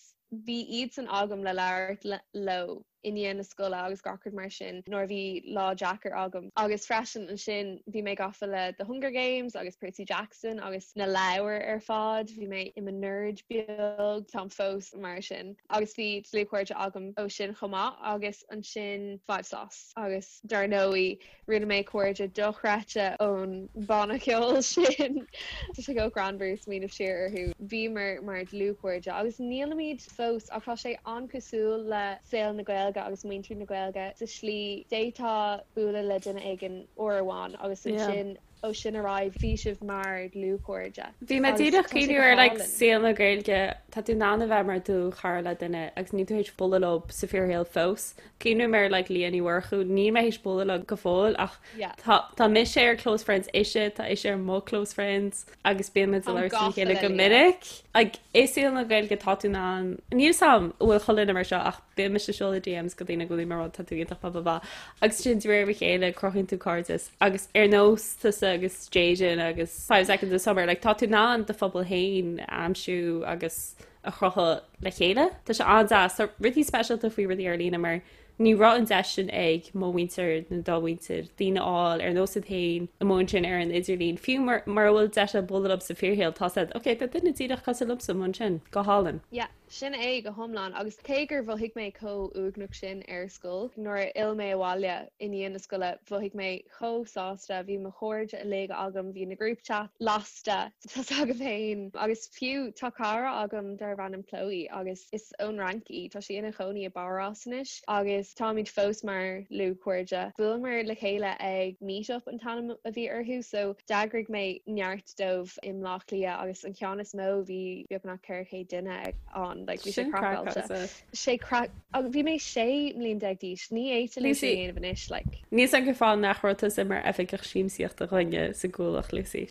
bhí iadsan agam le labhairt leo i ndiaidh na scoile agus gach rud mar sin nuair a bhí lá deacair agam. Agus freisin ansin bhí mé gafa le The Hunger Games agus Percy Jackson agus na leabhair ar fad, bhí mé i mo nerd beag, táim fós mar sin. Agus bhí dlúthchairde agam ó sin chomh maith agus ansin 5SOS agus dar ndóigh Rinne mé cairde dochreidte ón banna ceoil sin. Tá sé chomh greannmhar smaoineamh siar orthu. Bhíomar mar dlúthchairde agus nílimid fós ach tá sé an-cosúil le saol na Gaeilge agus muintir na Gaeilge sa slí d'fhéadfá bualadh le duine éigin uair amháin agus ansin ó sin ar aghaidh bhí sibh mar dhlúthchairde. Bhí mé díreach ag cuimhneamh ar like saol na Gaeilge, tá tú in ann a bheith mar dlúthchara le duine agus níl tú théis bualadh leo sa fíorshaol fós. Cuimhním ar like Leah Ní Mhurchú, níl mé théis bualadh leo go fóill ach tá tá mise ar close friends ise, tá ise ar mo close friends agus bíonn muid ag labhairt le chéile go minic. Like i saol na Gaeilge tá tú in ann, níl 'fhios a'm an bhfuil chuile dhuine mar seo ach bíonn mise ag seoladh DMs go daoine go bhfuil mé ag rá tá tú iontach blah blah blah agus sin de réir a chéile cruthaíonn tú cairdeas agus ar nós tusa agus Jaden agus 5 Seconds of Summer like tá tú in ann do phobal féin a aimsiú agus a chruthú le chéile. Tá sé an-deas. Tá rudaí speisialta faoi rudaí ar líne mar ní raibh an deis sin ag mo mhuintir nó do mhuintir, daoine a fháil ar nós iad féin amuigh ansin ar an idirlíon. Fiú mura bhfuil deis agat bualadh leo sa fíorshaol, tá siad, ok, tá duine díreach cosúil liomsa amuigh ansin. Go hálainn. Yeah, sin é go hiomlán. Agus cé gur mhothaigh mé chomh uaigneach sin ar scoil, nuair a fhill mé abhaile i ndiaidh na scoile, mhothaigh mé chomh sásta, bhí mo chairde uilig agam, bhí na group chats lasta, tá's agaibh féin. Agus fiú, tá cara agam darb ainm Chloe agus is ón Fhrainc í, tá sí ina chónaí i bPáras anois agus táimid fós mar dhlúthchairde. Bhuaileamar le chéile ag Meetup an t-ainm a bhí orthu, so d'eagraigh mé neart dóibh i mBleá Cliath agus an ceann is mó bhí beagnach 400 duine ann. ann, like bhí sé craiceáilte. Sé craic, agus bhí mé 16 mbliain d'aois, ní fhéadfainn é sin a dhéanamh anois, like. Níl 's agam cén fáth nach raibh tusa mar oifigeach siamsaíochta dhúinne sa gCuallacht, Lucy.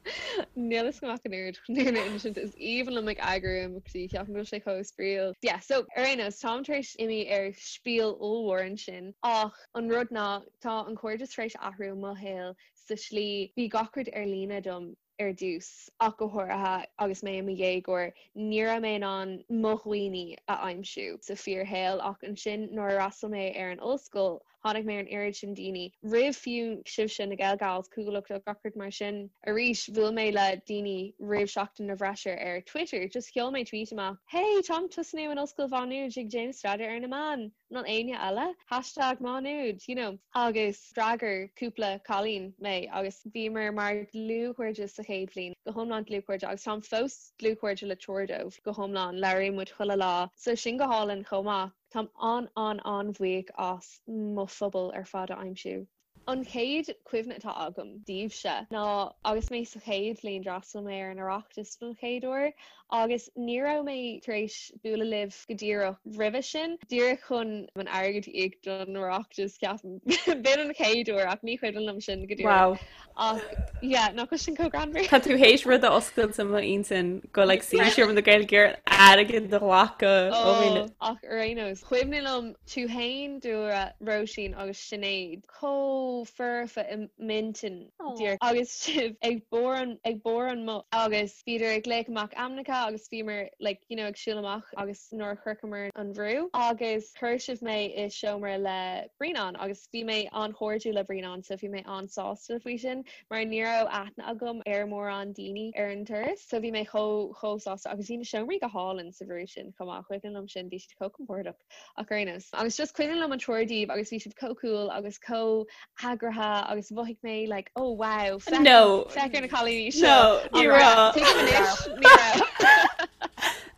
Níl 'fhios agam ach an oiread chun é a insint, is aoibhinn liom ag eagrú imeachtaí, ceapaim go bhfuil sé chomh spraíúil. Yeah, so ar aon nós, táim tar éis imí ar spiel ollmhór ansin, ach an rud ná, tá an cairdeas tar éis athrú i mo shaol sa slí, bhí gach rud ar líne dom ar dtús, ach go háirithe agus mé i mo dhéagóir, ní raibh mé in ann mo dhaoine a aimsiú sa fíorshaol ach ansin nuair a fhreastail mé ar an ollscoil, tháinig mé ar an oiread sin daoine, roimh fiú sibhse, na Gaelgals, Cuallacht agus gach rud mar sin. Arís, bhuail mé le daoine roimh Seachtain na bhFreisear ar Twitter, just sheol mé tweet amach, Hey, táim ag tosnú in Ollscoil Mhá Nuad ag déanamh staidéar ar na meáin! An bhfuil éinne eile? Hashtag Má Nuad, you know. Agus d'fhreagair cúpla cailín mé agus bhíomar mar dlúthchairde sa chéad bhliain, go hiomlán dlúthchairde agus táim fós dlúthchairde le triúr dóibh go hiomlán, labhraíonn muid chuile lá. So sin go hálainn chomh maith. Táim an-an-an-bhuíoch as mo phobal ar fad a aimsiú. An chéad chuimhne atá agam daoibhse ná agus mé sa chéad bhliain d'fhreastail mé ar an Oireachtas don chéad uair agus ní raibh mé tar éis bualadh libh go díreach roimhe sin, díreach chun an airgead a íoc don Oireachtas ceapaim. B'in an chéad uair ach ní cuimhin liom sin go díreach. Wow. Ach yeah, nach bhfuil sin chomh greannmhar? Tá tú théis rud a oscailt i m'intinn go like Seomra na Gaeilge airgead a ghlacadh ó dhaoine. Oh, ach ar aon nós, cuimhin liom tú fhéin, Dúlra, Róisín agus Sinéad chomh foirfe i m'intinn díreach agus sibh ag bord an ag bord an mbus agus bhíodar ag glaoch amach ainmneacha agus bhíomar like you know ag siúl amach agus nuair a shroicheamar an bhrú agus chuir sibh mé i seomra le Brianán agus bhí mé an-chairdiúil le Brianán so bhí mé an-sásta faoi sin mar ní raibh aithne agam ar mórán daoine ar an turas so bhí mé chomh chomh sásta agus bhí na seomraí go hálainn sa bhrú sin chomh maith cuimhin liom sin bhí siad chomh compordach. Ach ar aon nós. Agus just cuimhin liom an triúr díobh agus bhí siad chomh cool agus chomh heagraithe agus mhothaigh mé like oh wow féach No. féach ar na cailíní seo. No, ní raibh. Tuigim anois, ní raibh.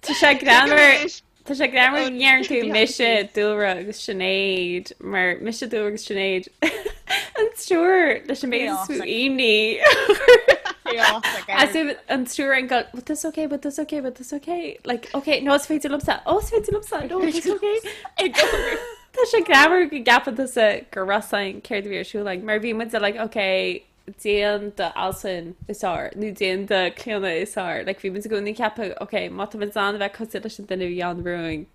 Tá sé Tuigim greannmhar anois. Tá sé greannmhar Oh, go ndeireann tú behind the mise scenes. Dúlra agus Sinéad mar mise Dúlra agus Sinéad an triúr leis an méid is mó Chaotic. imní. Chaotic. As if an triúr ag gabháil, but that's okay, but that's okay, but that's okay. Like, okay, no, is féidir liomsa, oh, is féidir liomsa, no, it's okay. Tá sé greannmhar go gceapann tusa go raibh 's againn céard a bhí ar siúl againn, mar bhí muid like, okay, déan do Altan is fearr, nó déan do Clíona is fearr. Like, bhí muid i gcónaí ag ceapadh, okay, má tá muid in ann a bheith cosúil leis an duine a bhí ann romhainn.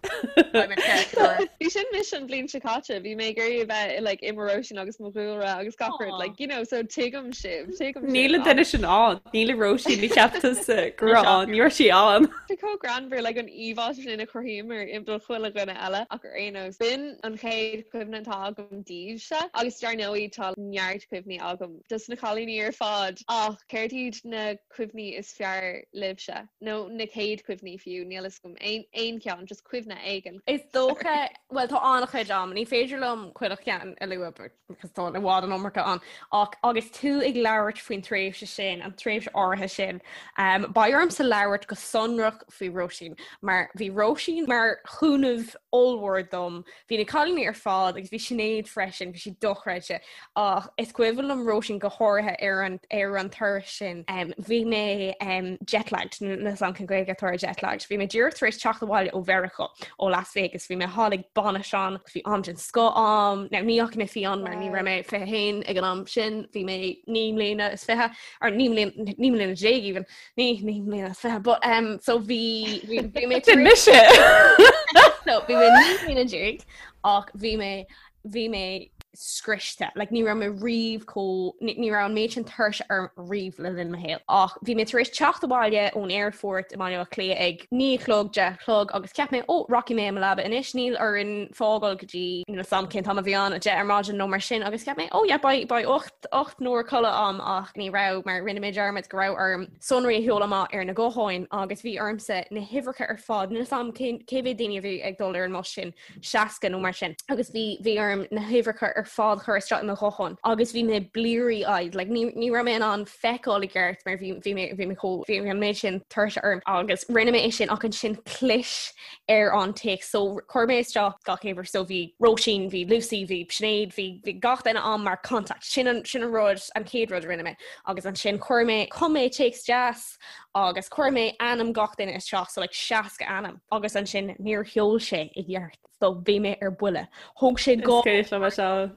Bhí sin mise an bhliain seo caite, bhí mé ag iarraidh a bheith like, i mo Róisín agus mo Dhúlra agus gach rud, like, you know, so tuigim sibh, tuigim sibh. Níl an duine sin ann, níl an Róisín a cheap tusa go raibh ann, ní raibh sí ann. Tá chomh greannmhar like an íomhá sin a chruthaíomar i do chuile dhuine eile ach ar aon nós, b'in an chéad chuimhne atá agam daoibhse agus dar ndóigh tá neart cuimhní agam dos na cailíní ar fad ach céard iad na cuimhní is fearr libhse? Nó na chéad chuimhní fiú, níl fhios agam, aon aon cheann, just cuimhne éigin. Is dócha, bhuel tá an-chuid agam, ní féidir liom chuile cheann a lua because tá i bhfad an iomarca ann, ach agus tú ag labhairt faoin tréimhse sin, an tréimhse áirithe sin, um, beidh ormsa labhairt go sonrach faoi Róisín, mar bhí Róisín mar chúnamh ollmhór dom Bhí na cailíní ar fad agus bhí Sinéad freisin, bhí sí dochreidte. Ach is cuimhin liom Róisín go háirithe ar an ar an turas sin. Um, bhí mé um, jetlagged, níl 'fhios a'm cén Ghaeilge atá ar jetlagged. Bhí mé díreach tar éis teacht abhaile ó Mheiriceá, ó Las Vegas. Bhí mé thall ag bainis ann, bhí am den scoth a'm. Now, ní fhaca mé fiáin mar ní raibh mé 21 ag an am sin, bhí mé 19 mbliana is 20, or 19 mbliana 19 mbliana even. 19 mbliana is 20 but um so bhí bhí bhí mé Sin mise! so bhí mé 19 mbliana ach bhí mé bhí mé scriosta like ní raibh mé riamh chomh ní ní raibh an méid sin tuirse orm riamh le linn mo shaoil ach bhí mé tar éis teacht abhaile ón aerfort i mBaile Átha Cliath ag 9 a chlog 10 a chlog agus cheap mé ó rachaidh mé i mo leaba anois níl orainn fágáil go dtí níl 'fhios a'm cén t-am a bhí ann 10 ar maidin nó mar sin agus cheap mé oh yeah beidh beidh 8 8 n-uair codladh a'm ach ní raibh mar rinne mé dearmad go raibh orm sonraí a sheoladh amach ar na gutháin agus bhí ormsa na huimhreacha ar fad, níl 'fhios a'm cé mhéad daoine a bhí ag dul ar an mbus sin, 60 nó mar sin, agus bhí bhí orm na huimhreacha ar fad a chur isteach i mo ghuthán agus bhí mé bleary eyed, like ní ní raibh mé in ann feiceáil i gceart mar bhí bhí mé bhí mé chomh bhí an méid sin tuirse orm agus rinne mé é sin ach ansin chlis ar an téacs. So chuir mé isteach gach uimhir so bhí Róisín, bhí Lucy, bhí Sinéad, bhí bhí gach duine a'm mar contact. Sin an sin an rud an chéad rud a rinne mé. Agus ansin chuir mé chum mé téacs deas Agus chuir mé ainm gach duine isteach so like 60 ainm agus ansin níor sheol sé i gceart so bhí mé ar buile. Thóg sé dhá Is cuimhin liom é seo.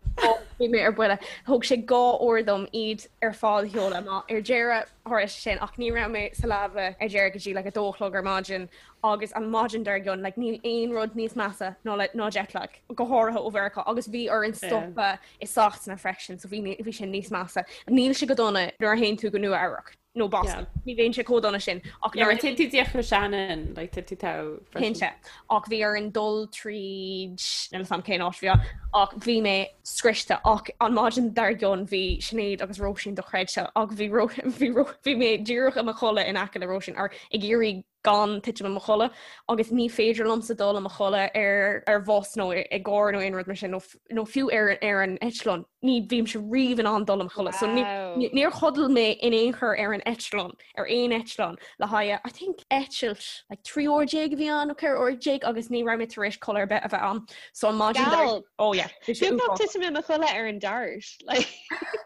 Bhí mé ar buile. Thóg sé 2 uair dom iad ar fad a sheoladh amach ar deireadh tharla sé sin ach ní raibh mé sa leaba ar deireadh go dtí like 2 a chlog ar maidin agus an maidin dár gcionn like níl aon rud níos measa ná le ná jetlag go háirithe ó Mheiriceá agus bhí orainn stopadh i Sasana freisin so bhí bhí sin níos measa. Níl sé go dona nuair a théann tú go Nua Eabhrac. nó Boston. Ní bhíonn sé chomh dona sin ach nuair a théann tú díreach go Shannon, like, tá tú togha freisin. Cinnte. Ach bhí orainn dul tríd, níl 'fhios a'm cén áit a bhí ann, ach bhí mé scriosta ach an maidin dár gcionn bhí Sinéad agus Róisín dochreidte ach bhí bhí bhí mé díreach i mo chodladh in aice le Róisín ar ag iarraidh gan titim i mo chodladh agus ní féidir liomsa dul i mo chodladh ar ar bhus nó i gcarr nó aon rud mar sin nó nó fiú ar ar an eitleán. Ní bhímse riamh in ann dul i mo chodladh. So ní níor chodail mé in aon chor ar an eitleán, ar aon eitleán le haghaidh I think eitilt like 13 uair a bhí ann nó 14 uair agus ní raibh mé tar éis codladh ar bith a bheith ann. So an maidin dar Oh yeah, bhí sé Beagnach uafásach. titim i mo chodladh ar an dart. Like.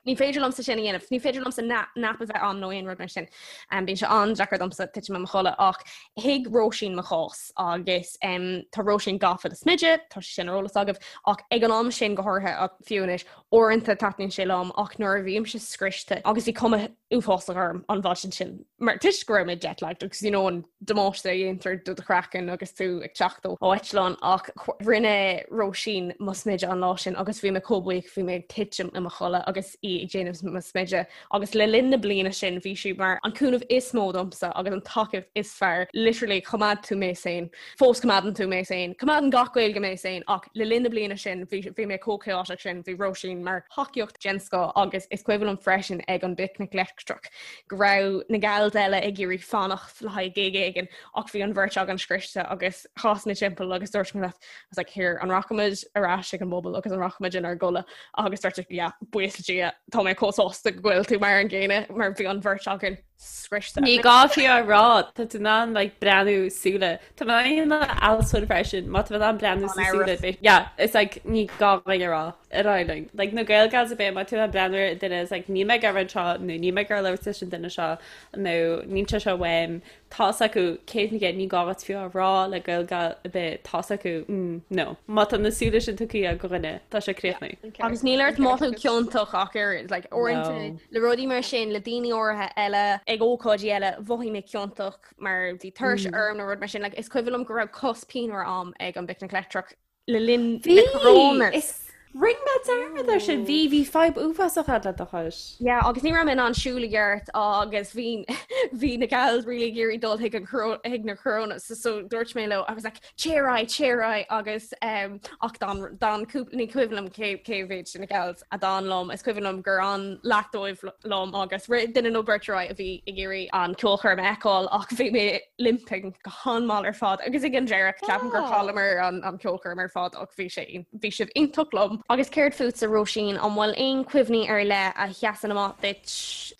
Ní féidir liomsa sin a dhéanamh. Ní féidir liomsa nap a bheith ann nó aon rud mar sin. Bíonn sé an-deacair domsa titim i mo chodladh ach thuig Róisín mo chás agus tá Róisín gafa le smideadh, tá sé sin ar eolas agaibh, ach ag an am sin go háirithe ach fiú anois, uaireanta taitníonn sé liom ach nuair a bhímse scriosta agus bhí cuma uafásach orm an mhaidin sin mar toisc go raibh mé jet-lagged agus you know an damáiste a dhéantar do do chraiceann agus tú ag teacht ó eitleán ach rinne Róisín mo smideadh an lá sin agus bhí mé chomh buíoch bhí mé ag titim i mo chodladh agus í ag déanamh mo smideadh Agus le linn na bliana sin bhí sí mar an cúnamh is mó domsa agus an tacaíocht is fearr. Literally choimeád tú mé sane. Fós coimeádann tú mé sane. Coimeádann gach Gaeilge mé sane ach le linn na bliana sin bhí bhí mé chomh chaotic sin, bhí Róisín mar thacaíocht den scoth agus is cuimhin liom freisin ag an bPicnic Leictreach go raibh na gals eile ag iarraidh fanacht le haghaidh gig éigin ach bhí an bheirt againn scriosta agus chas mé timpeall agus dúirt mé leat I was like here an rachaimid ar ais ag an bpuball agus an rachaimid inár gcodladh agus dúirt yeah buíochas le Dia tá mé chomh sásta go bhfuil tú mar an gcéanna mar bhí an bheirt againn scriosta. Ní gá fiú a rá, tá tú in ann like breathnú súile. Tá mé in ann alsóin freisin, má tá mé in ann breathnú sa súile bit. Yeah, it's like ní gá dúinn a rá ar aghaidh linn. Like na Gael Gals ar bith má tá tú in ann breathnú ar duine is like níl mé ag iarraidh anseo nó níl mé ag iarraidh labhairt leis an duine seo nó níl sé seo uaim. Tá's acu 100%, ní gá duit fiú a rá le Gael Gal ar bith, tá's acu, mm, no. Má tá na súile sin tugtha ag dhuine, tá sé críochnaithe. Agus níl ort mothú ciontach ach oiread, like, uaireanta le rudaí mar sin, le daoine áirithe eile, ag ócáidí eile, mhothaigh mé ciontach mar bhí tuirse orm nó rud mar sin, like, is cuimhin liom go raibh cos pianmhar a'm ag an bPicnic Leictreach le linn na Coronas. Is rinne mé dearmad ar sin. Bhí, bhí fadhb uafásach agat le do chois. Yeah, agus ní raibh mé in ann siúl i gceart agus bhí bhí na gals really ag iarraidh dul chuig an chuig na Coronas so, so dúirt mé leo I was like téir ar aghaidh, téir ar aghaidh agus um, ach d'fhan d'fhan cúpla ní cuimhin liom cé cé mhéad de na gals a d'fhan liom is cuimhin liom gur fhan leath dóibh liom agus rith duine nó beirt ar aghaidh a bhí ag iarraidh an ceolchoirm a fheiceáil ach bhí mé limping go han-mhall ar fad agus ag an deireadh ceapaim gur chailleamar an an ceolchoirm ar fad ach bhí sé bhí sibh iontach liom. Agus céard fútsa Róisín, an bhfuil aon cuimhní ar leith a sheasann amach duit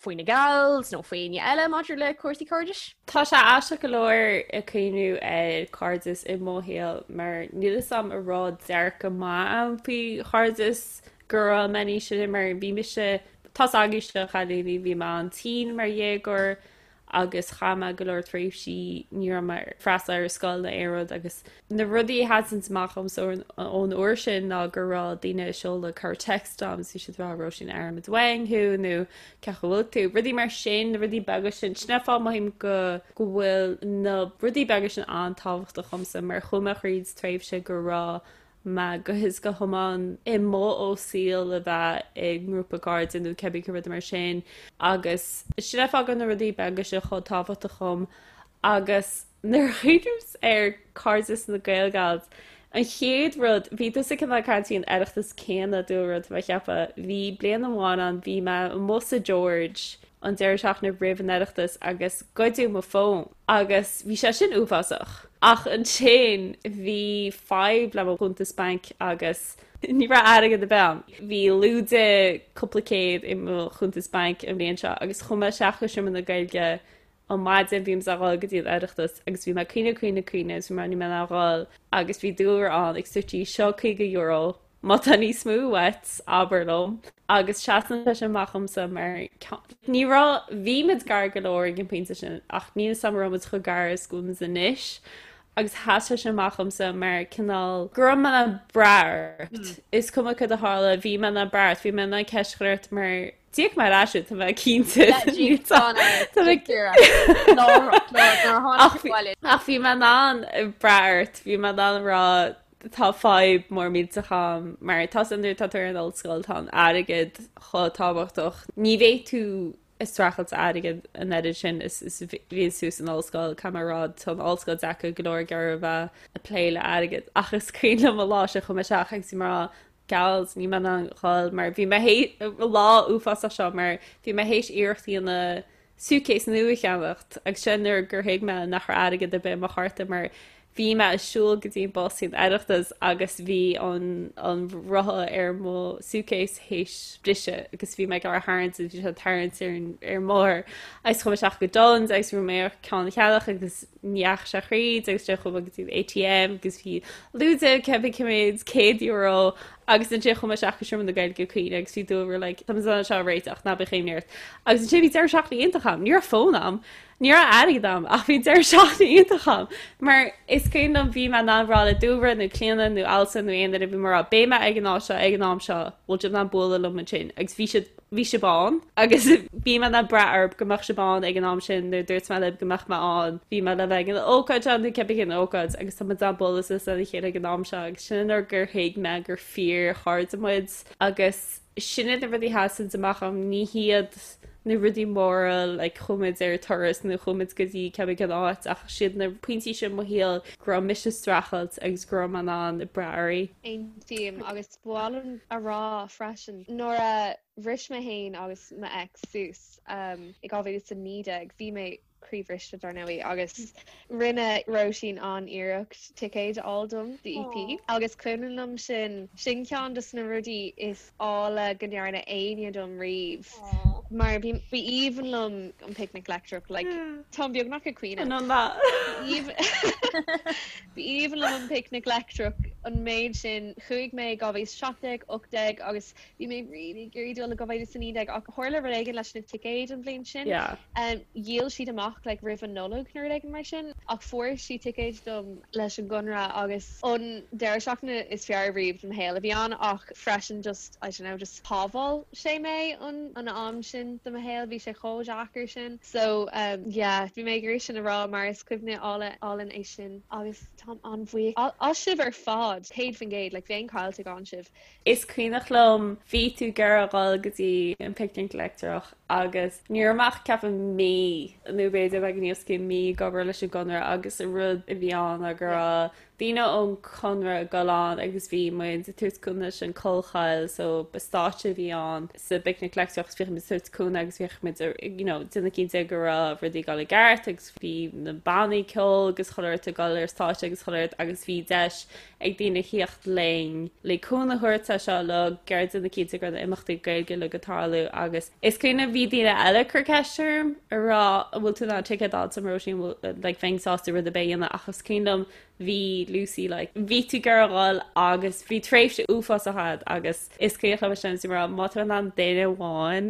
faoi na gals nó faoi éinne eile maidir le cúrsaí cairdis? Tá sé aisteach go leor ag cuimhniú ar cairdeas i mo shaol mar níl fhios a'm an raibh dearcadh maith a'm faoi chairdeas go raibh mé níos sine mar bhí mise tá's agaibhse a chailíní bhí mé an-tinn mar dhéagóir agus chaith mé go leor tréimhsí ní raibh mé ag freastal ar scoil nó aon rud agus na rudaí a sheasann amach dhomsa ón uair sin ná go raibh daoine ag seoladh corr-text dom is bhí siad ag rá Róisín airímid uainn thú nó cén chaoi a bhfuil tú, rudaí mar sin, na rudaí beaga sin, sin an fáth mothaím go go bhfuil na rudaí beaga sin an-tábhachtach dhomsa mar chuaigh mé thríd tréimhse go raibh mé go huile is go hiomlán amuigh ó saol a bheith i ngrúpa cairde nó cibé cén rud mar sin agus sin an fáth go bhfuil na rudaí beaga seo chomh tábhachtach dhom agus nuair a chuimhním ar cairdeas na Gael Gals an chéad rud bhí tusa cineál ag caint faoin Oireachtas céanna dúlra tá mé ag ceapadh bhí bliain amháin ann bhí mé amuigh sa George an deireadh seachtaine roimh an Oireachtas agus goideadh mo fón agus bhí sé sin uafásach. Ach ansin bhí fadhb le mo chuntas bainc agus ní raibh airgead ar bith ann. Bhí lúide cúpla céad i mo chuntas bainc an bhliain seo agus chuaigh mé isteach go Seomra na Gaeilge an maidin bhí mé ag dhul go dtí an Oireachtas agus bhí mé ag caoineadh caoineadh caoineadh agus bhí mé ní mé ag dhul agus bhí dúlra ann ag suití seo €50. Má tá níos mó uait, abair liom. Agus seasann sé sin amach dhomsa mar ní raibh, bhí muid gar go leor ag an bpointe sin ach níl 'fhios a'm an raibh muid chomh gar is go bhfuil muid anois agus sheas sé sin amach dhomsa mar cineál go raibh mé in ann brath ort. Is cuma cad a tharla, bhí mé in ann brath ort, bhí mé in ann ceist a chur ort mar D'íoc mé ar ais thú, tá mé cinnte. Ach bhí mé in ann brath ort, bhí mé in ann rá tá fadhb mór millteach a'm mar tá san nuair atá tú ar an ollscoil tá an airgead chomh tábhachtach. Ní bheidh tú ag streachailt airgead an oiread sin is is bhíonn tú san ollscoil, caithfidh mé a rá tá an ollscoil deacair go leor ag iarraidh a bheith ag plé le airgead ach is cuimhin liom an lá sin chuaigh mé isteach agus bhí mé ag rá Gals, níl mé in ann dhul mar bhí mé lá uafásach seo mar bhí mé théis iarracht a dhéanamh suitcase nua a cheannacht agus sin nuair gur thuig mé nach raibh airgead ar bith i mo chárta mar bhí mé ag siúl go dtí an bus san Oireachtas agus bhí an an rotha ar mo suitcase théis briseadh agus bhí mé ag iarraidh tharraingt agus bhí sé ag tarraingt ar an ar an mbóthar agus chuaigh mé isteach go Dunnes agus bhí mé ar ceann a cheannach agus ní dheachaigh sé thríd agus ansin chuaigh mé go dtí an ATM agus bhí lúide cibé cé mhéad €100 agus ansin chuaigh mé isteach go Seomra na Gaeilge Caoineadh agus bhí Dúlra like tá muid in ann seo a réiteach ná bíodh imní ort agus ansin bhí deireadh seachtaine iontach a'm ní raibh fón a'm ní raibh airgead a'm ach bhí deireadh seachtaine iontach a'm mar is cuimhin liom bhí mé in ann rá le Dúlra nó Clíona nó Alison nó aon duine bhí mé ag rá beidh mé ag an áit seo ag an am seo bhfuil sibh in ann bualadh liom ansin agus bhí siad bhí sibh ann agus bhí mé in ann brath oraibh go mbeadh sibh ann ag an am sin nuair a dúirt mé libh go mbeadh mé ann bhí mé le bheith ag an ócáid seo nó cibé cén ócáid agus tá muid in ann bualadh suas lena chéile ag an am seo agus sin an uair gur thuig mé gur fíor chairde muid agus sin iad na rudaí a sheasann amach a'm ní hiad na rudaí móra like chuaigh muid ar turas nó chuaigh muid go dtí cibé cén áit ach siad na pointí sin i mo shaol go raibh mise ag streachailt agus go raibh mé in ann brath oraibh. Aontaím agus Ba mhaith liom a rá freisin, nuair a bhris mé féin agus m'ex suas i 2019, bhí mé croíbhriste dar ndóigh agus rinne Róisín an-iarracht ticéid a fháil dom do EP agus cuimhin liom sin, sin ceann de na rudaí is áille go ndearna éinne dom riamh mar bhí b'aoibhinn liom an Picnic Leictreach like táim beagnach ag caoineadh. B'aoibhinn liom an Picnic Leictreach an méid sin. Chuaigh mé i 2017, 18 agus bhí mé really ag iarraidh dul i 2019 ach tharla rud éigin leis na ticéid an bhliain sin. Dhíol siad amach like roimh an Nollaig nó rud éigin mar sin ach fuair sí ticéid dom leis an gConradh agus an deireadh seachtaine is fearr riamh de mo shaol a bhí ann ach freisin just, I don't know, just shábháil sé mé an an am sin de mo shaol, bhí sé chomh deacair sin. So yeah, bhí mé ag iarraidh sin a rá mar is cuimhne álainn é sin agus táim an-bhuíoch as sibh ar fad, 100%, like bheinn caillte gan sibh. Is cuimhneach liom, bhí tú ag iarraidh a dhul go dtí an Picnic Leictreach agus ní raibh mé ach ceapaim mí nó b'fhéidir beagán níos mó mí ag obair leis an gConradh agus an rud a bhí ann ná go raibh daoine ón Chonradh ag dul ann agus bhí muid ag tabhairt cúnamh leis an Collchoill so ba stáitse a bhí ann sa bPicnic Leictreach agus bhíodh muid ag tabhairt cúnamh agus bhíodh muid you know déanamh cinnte go raibh rudaí ag dul i gceart agus bhí na bannaí ceoil agus chuile shórt ag dul ar stáitse agus chuile shórt agus bhí deis ag daoine theacht linn le cúnamh a thabhairt leis seo uilig ag déanamh cinnte go raibh na imeachtaí Gaeilge uilig ag tarlú agus Is cuimhin liom bhí daoine eile ag cur ceist orm ag rá an bhfuil tú in ann ticéad a fháil dom Róisín bhfuil like bheinn sásta rud ar bith a dhéanamh ach is cuimhin liom bhí Lucy like bhí tú ag iarraidh a dhul agus bhí tréimhse uafásach a'd agus is cuimhin liom sin is rá má tá in ann duine amháin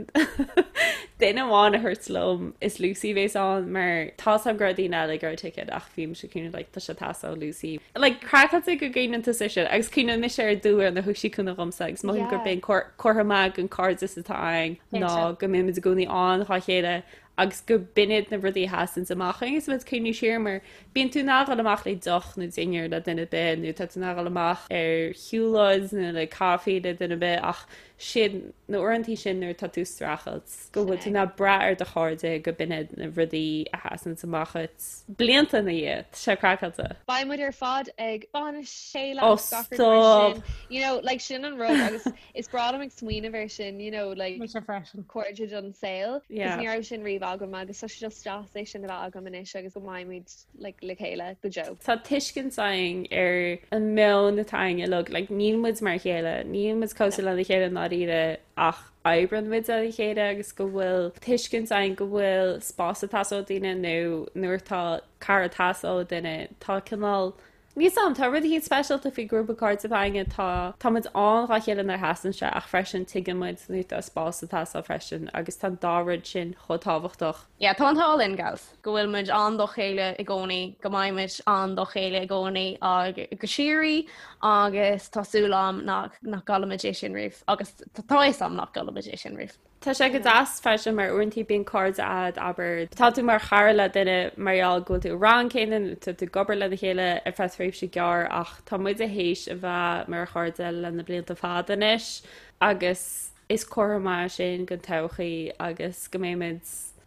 duine amháin a thabhairt liom is Lucy a bhéas ann mar tá 's a'm go raibh daoine eile ag iarraidh ticéad ach bhí mise ag cuimhneamh like tá sé ag teastáil ó Lucy like craiceáilte go gcuimhneann tusa air sin agus cuimhneann mise ar Dúlra nuair a thug sí cúnamh dhomsa agus mothaím gurb é an comhartha maith den cairdeas atá againn ná go mbímid i gcónaí ann dhá chéile agus go b'in iad na rudaí a sheasanns amach agus muid ag cuimhniú siar mar bíonn tú in ann dhul amach le deoch nó dinnéar le duine ar bith nó tá tú in ann dhul amach ar shiúlóid nó le caife le duine ar bith ach sin na uaireantaí sin nuair atá tú ag streachailt go bhfuil tú in ann brath ar do chairde go b'in iad na rudaí a sheasanns amach dhuit blianta ina dhiaidh. Tá sé craiceáilte. Beidh muid ar fad ag bainis chéile agus gach rud mar sin. You know, like sin an rud agus is breá liom ag smaoineamh air sin, you know, like Mise freisin. cairde don saol. Yeah. Cos ní raibh sin riamh agam agus tá sé just deas é sin a bheith agam anois agus go mbeidh muid like le chéile go deo. Tá tuiscint againn ar an meon atá againn uilig, like níl muid mar a chéile, níl muid cosúil lena chéile i ndáiríre ach oibreann muid lena chéile agus go bhfuil tuiscint againn go bhfuil spás ag teastáil ó daoine nó nuair atá cara ag teastáil ó duine, tá cineál. Níl 'fhios a'm, tá rud eicínt speisialta faoi grúpa cairde atá againne, tá, tá muid ann dhá chéile nuair a theastaíonn sé ach freisin tuigeann muid nuair atá spás ag teastáil freisin agus tá an dá rud sin chomh tábhachtach. Yeah, tá an t-ádh linn, gals, go bhfuil muid ann dá chéile i gcónaí, go mbeidh muid ann dá chéile i gcónaí ag go síoraí agus tá súil a'm nach, nach gcaillfimid é sin riamh agus tá fhios a'm nach gcaillfimid é sin riamh. Tá sé go deas freisin mar uaireanta bíonn cairde a'd, abair, tá tú mar chara le duine mar gheall go bhfuil tú i rang céanna nó tá tú ag obair lena chéile ar feadh tréimhse gearr ach tá muide théis a bheith mar chairde le na blianta fada anois agus is comhartha maith sin don todhchaí agus go mbeimid,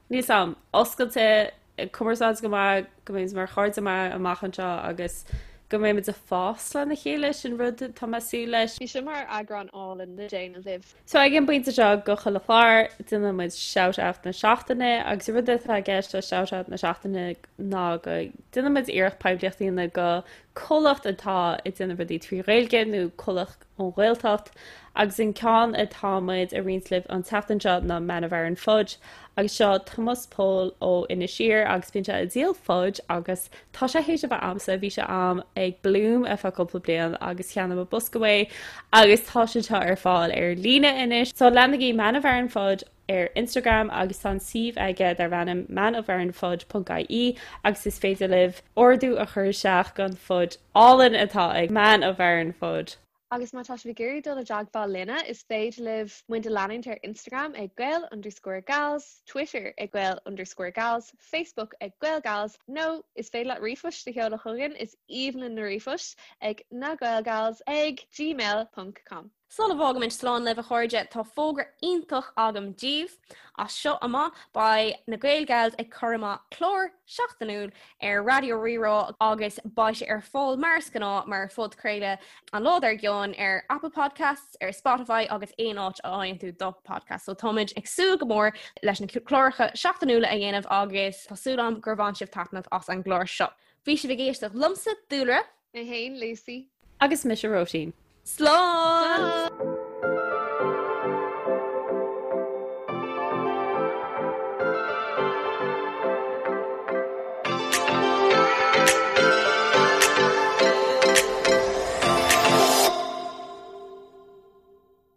níl 'fhios a'm, oscailte ag cumarsáid go maith, go mbeimid mar chairde maith amach anseo agus go mbeimid ag fás lena chéile, sin rud atá mé ag súil leis. Bhí seo mar eagrán álainn le déanamh libh. So ag an bpointe seo go chuile chlár, déanann muid shout out na seachtaine agus an rud atá i gceist le shout out na seachtaine ná go déanann muid iarracht poiblíocht a dhéanamh go comhlacht atá ag déanamh rudaí trí Ghaeilge nó comhlacht ón Ghaeltacht agus an ceann atá muid a roinnt libh an tseachtain seo ná Man of Aran Fudge agus seo Tomás Pól ó Inis Oírr agus bíonn sé ag díol fudge agus tá sé théis a bheith a'msa, bhí sé a'm ag Bloom ar feadh cúpla bliain agus cheannaigh mé bosca uaidh agus tá sé seo ar fáil ar líne anois. So leanaigí Man of Aran Fudge ar Instagram agus tá an suíomh aige darb ainm manofaranfudge.ie agus is féidir libh ordú a chur isteach don fudge álainn atá ag Man of Aran Fudge. Agus má tá sibh ag iarraidh dul i dteagmháil linne, is féidir libh muid a leanúint ar Instagram ag Gael underscore Gals, Twitter ag Gael underscore Gals, Facebook ag GaelGals, nó is féidir leat ríomhphost a sheoladh chugainn, is aoibhinn linn na ríomhphoist, ag nagaelgals ag gmail ponc com. Sula bhfágaimid slán libh a chairde, tá fógra iontach agam daoibh. As seo amach beidh na Gael Gals ag cur amach clár seachtainiúil ar Raidió Rí-Rá agus beidh sé ar fáil mar is gnáth mar phodchraoladh an lá dár gcionn ar Apple Podcasts, ar Spotify agus aon áit a fhaigheann tú do podcast. So táimid ag súil go mór leis na cláracha seachtainiúla a dhéanamh agus tá súil agam gur bhain sibh taitneamh as an gclár seo. Bhí sibh ag éisteacht liomsa, Dúlra. Mé féin, Lucy. Agus mise, Róisín. Slán!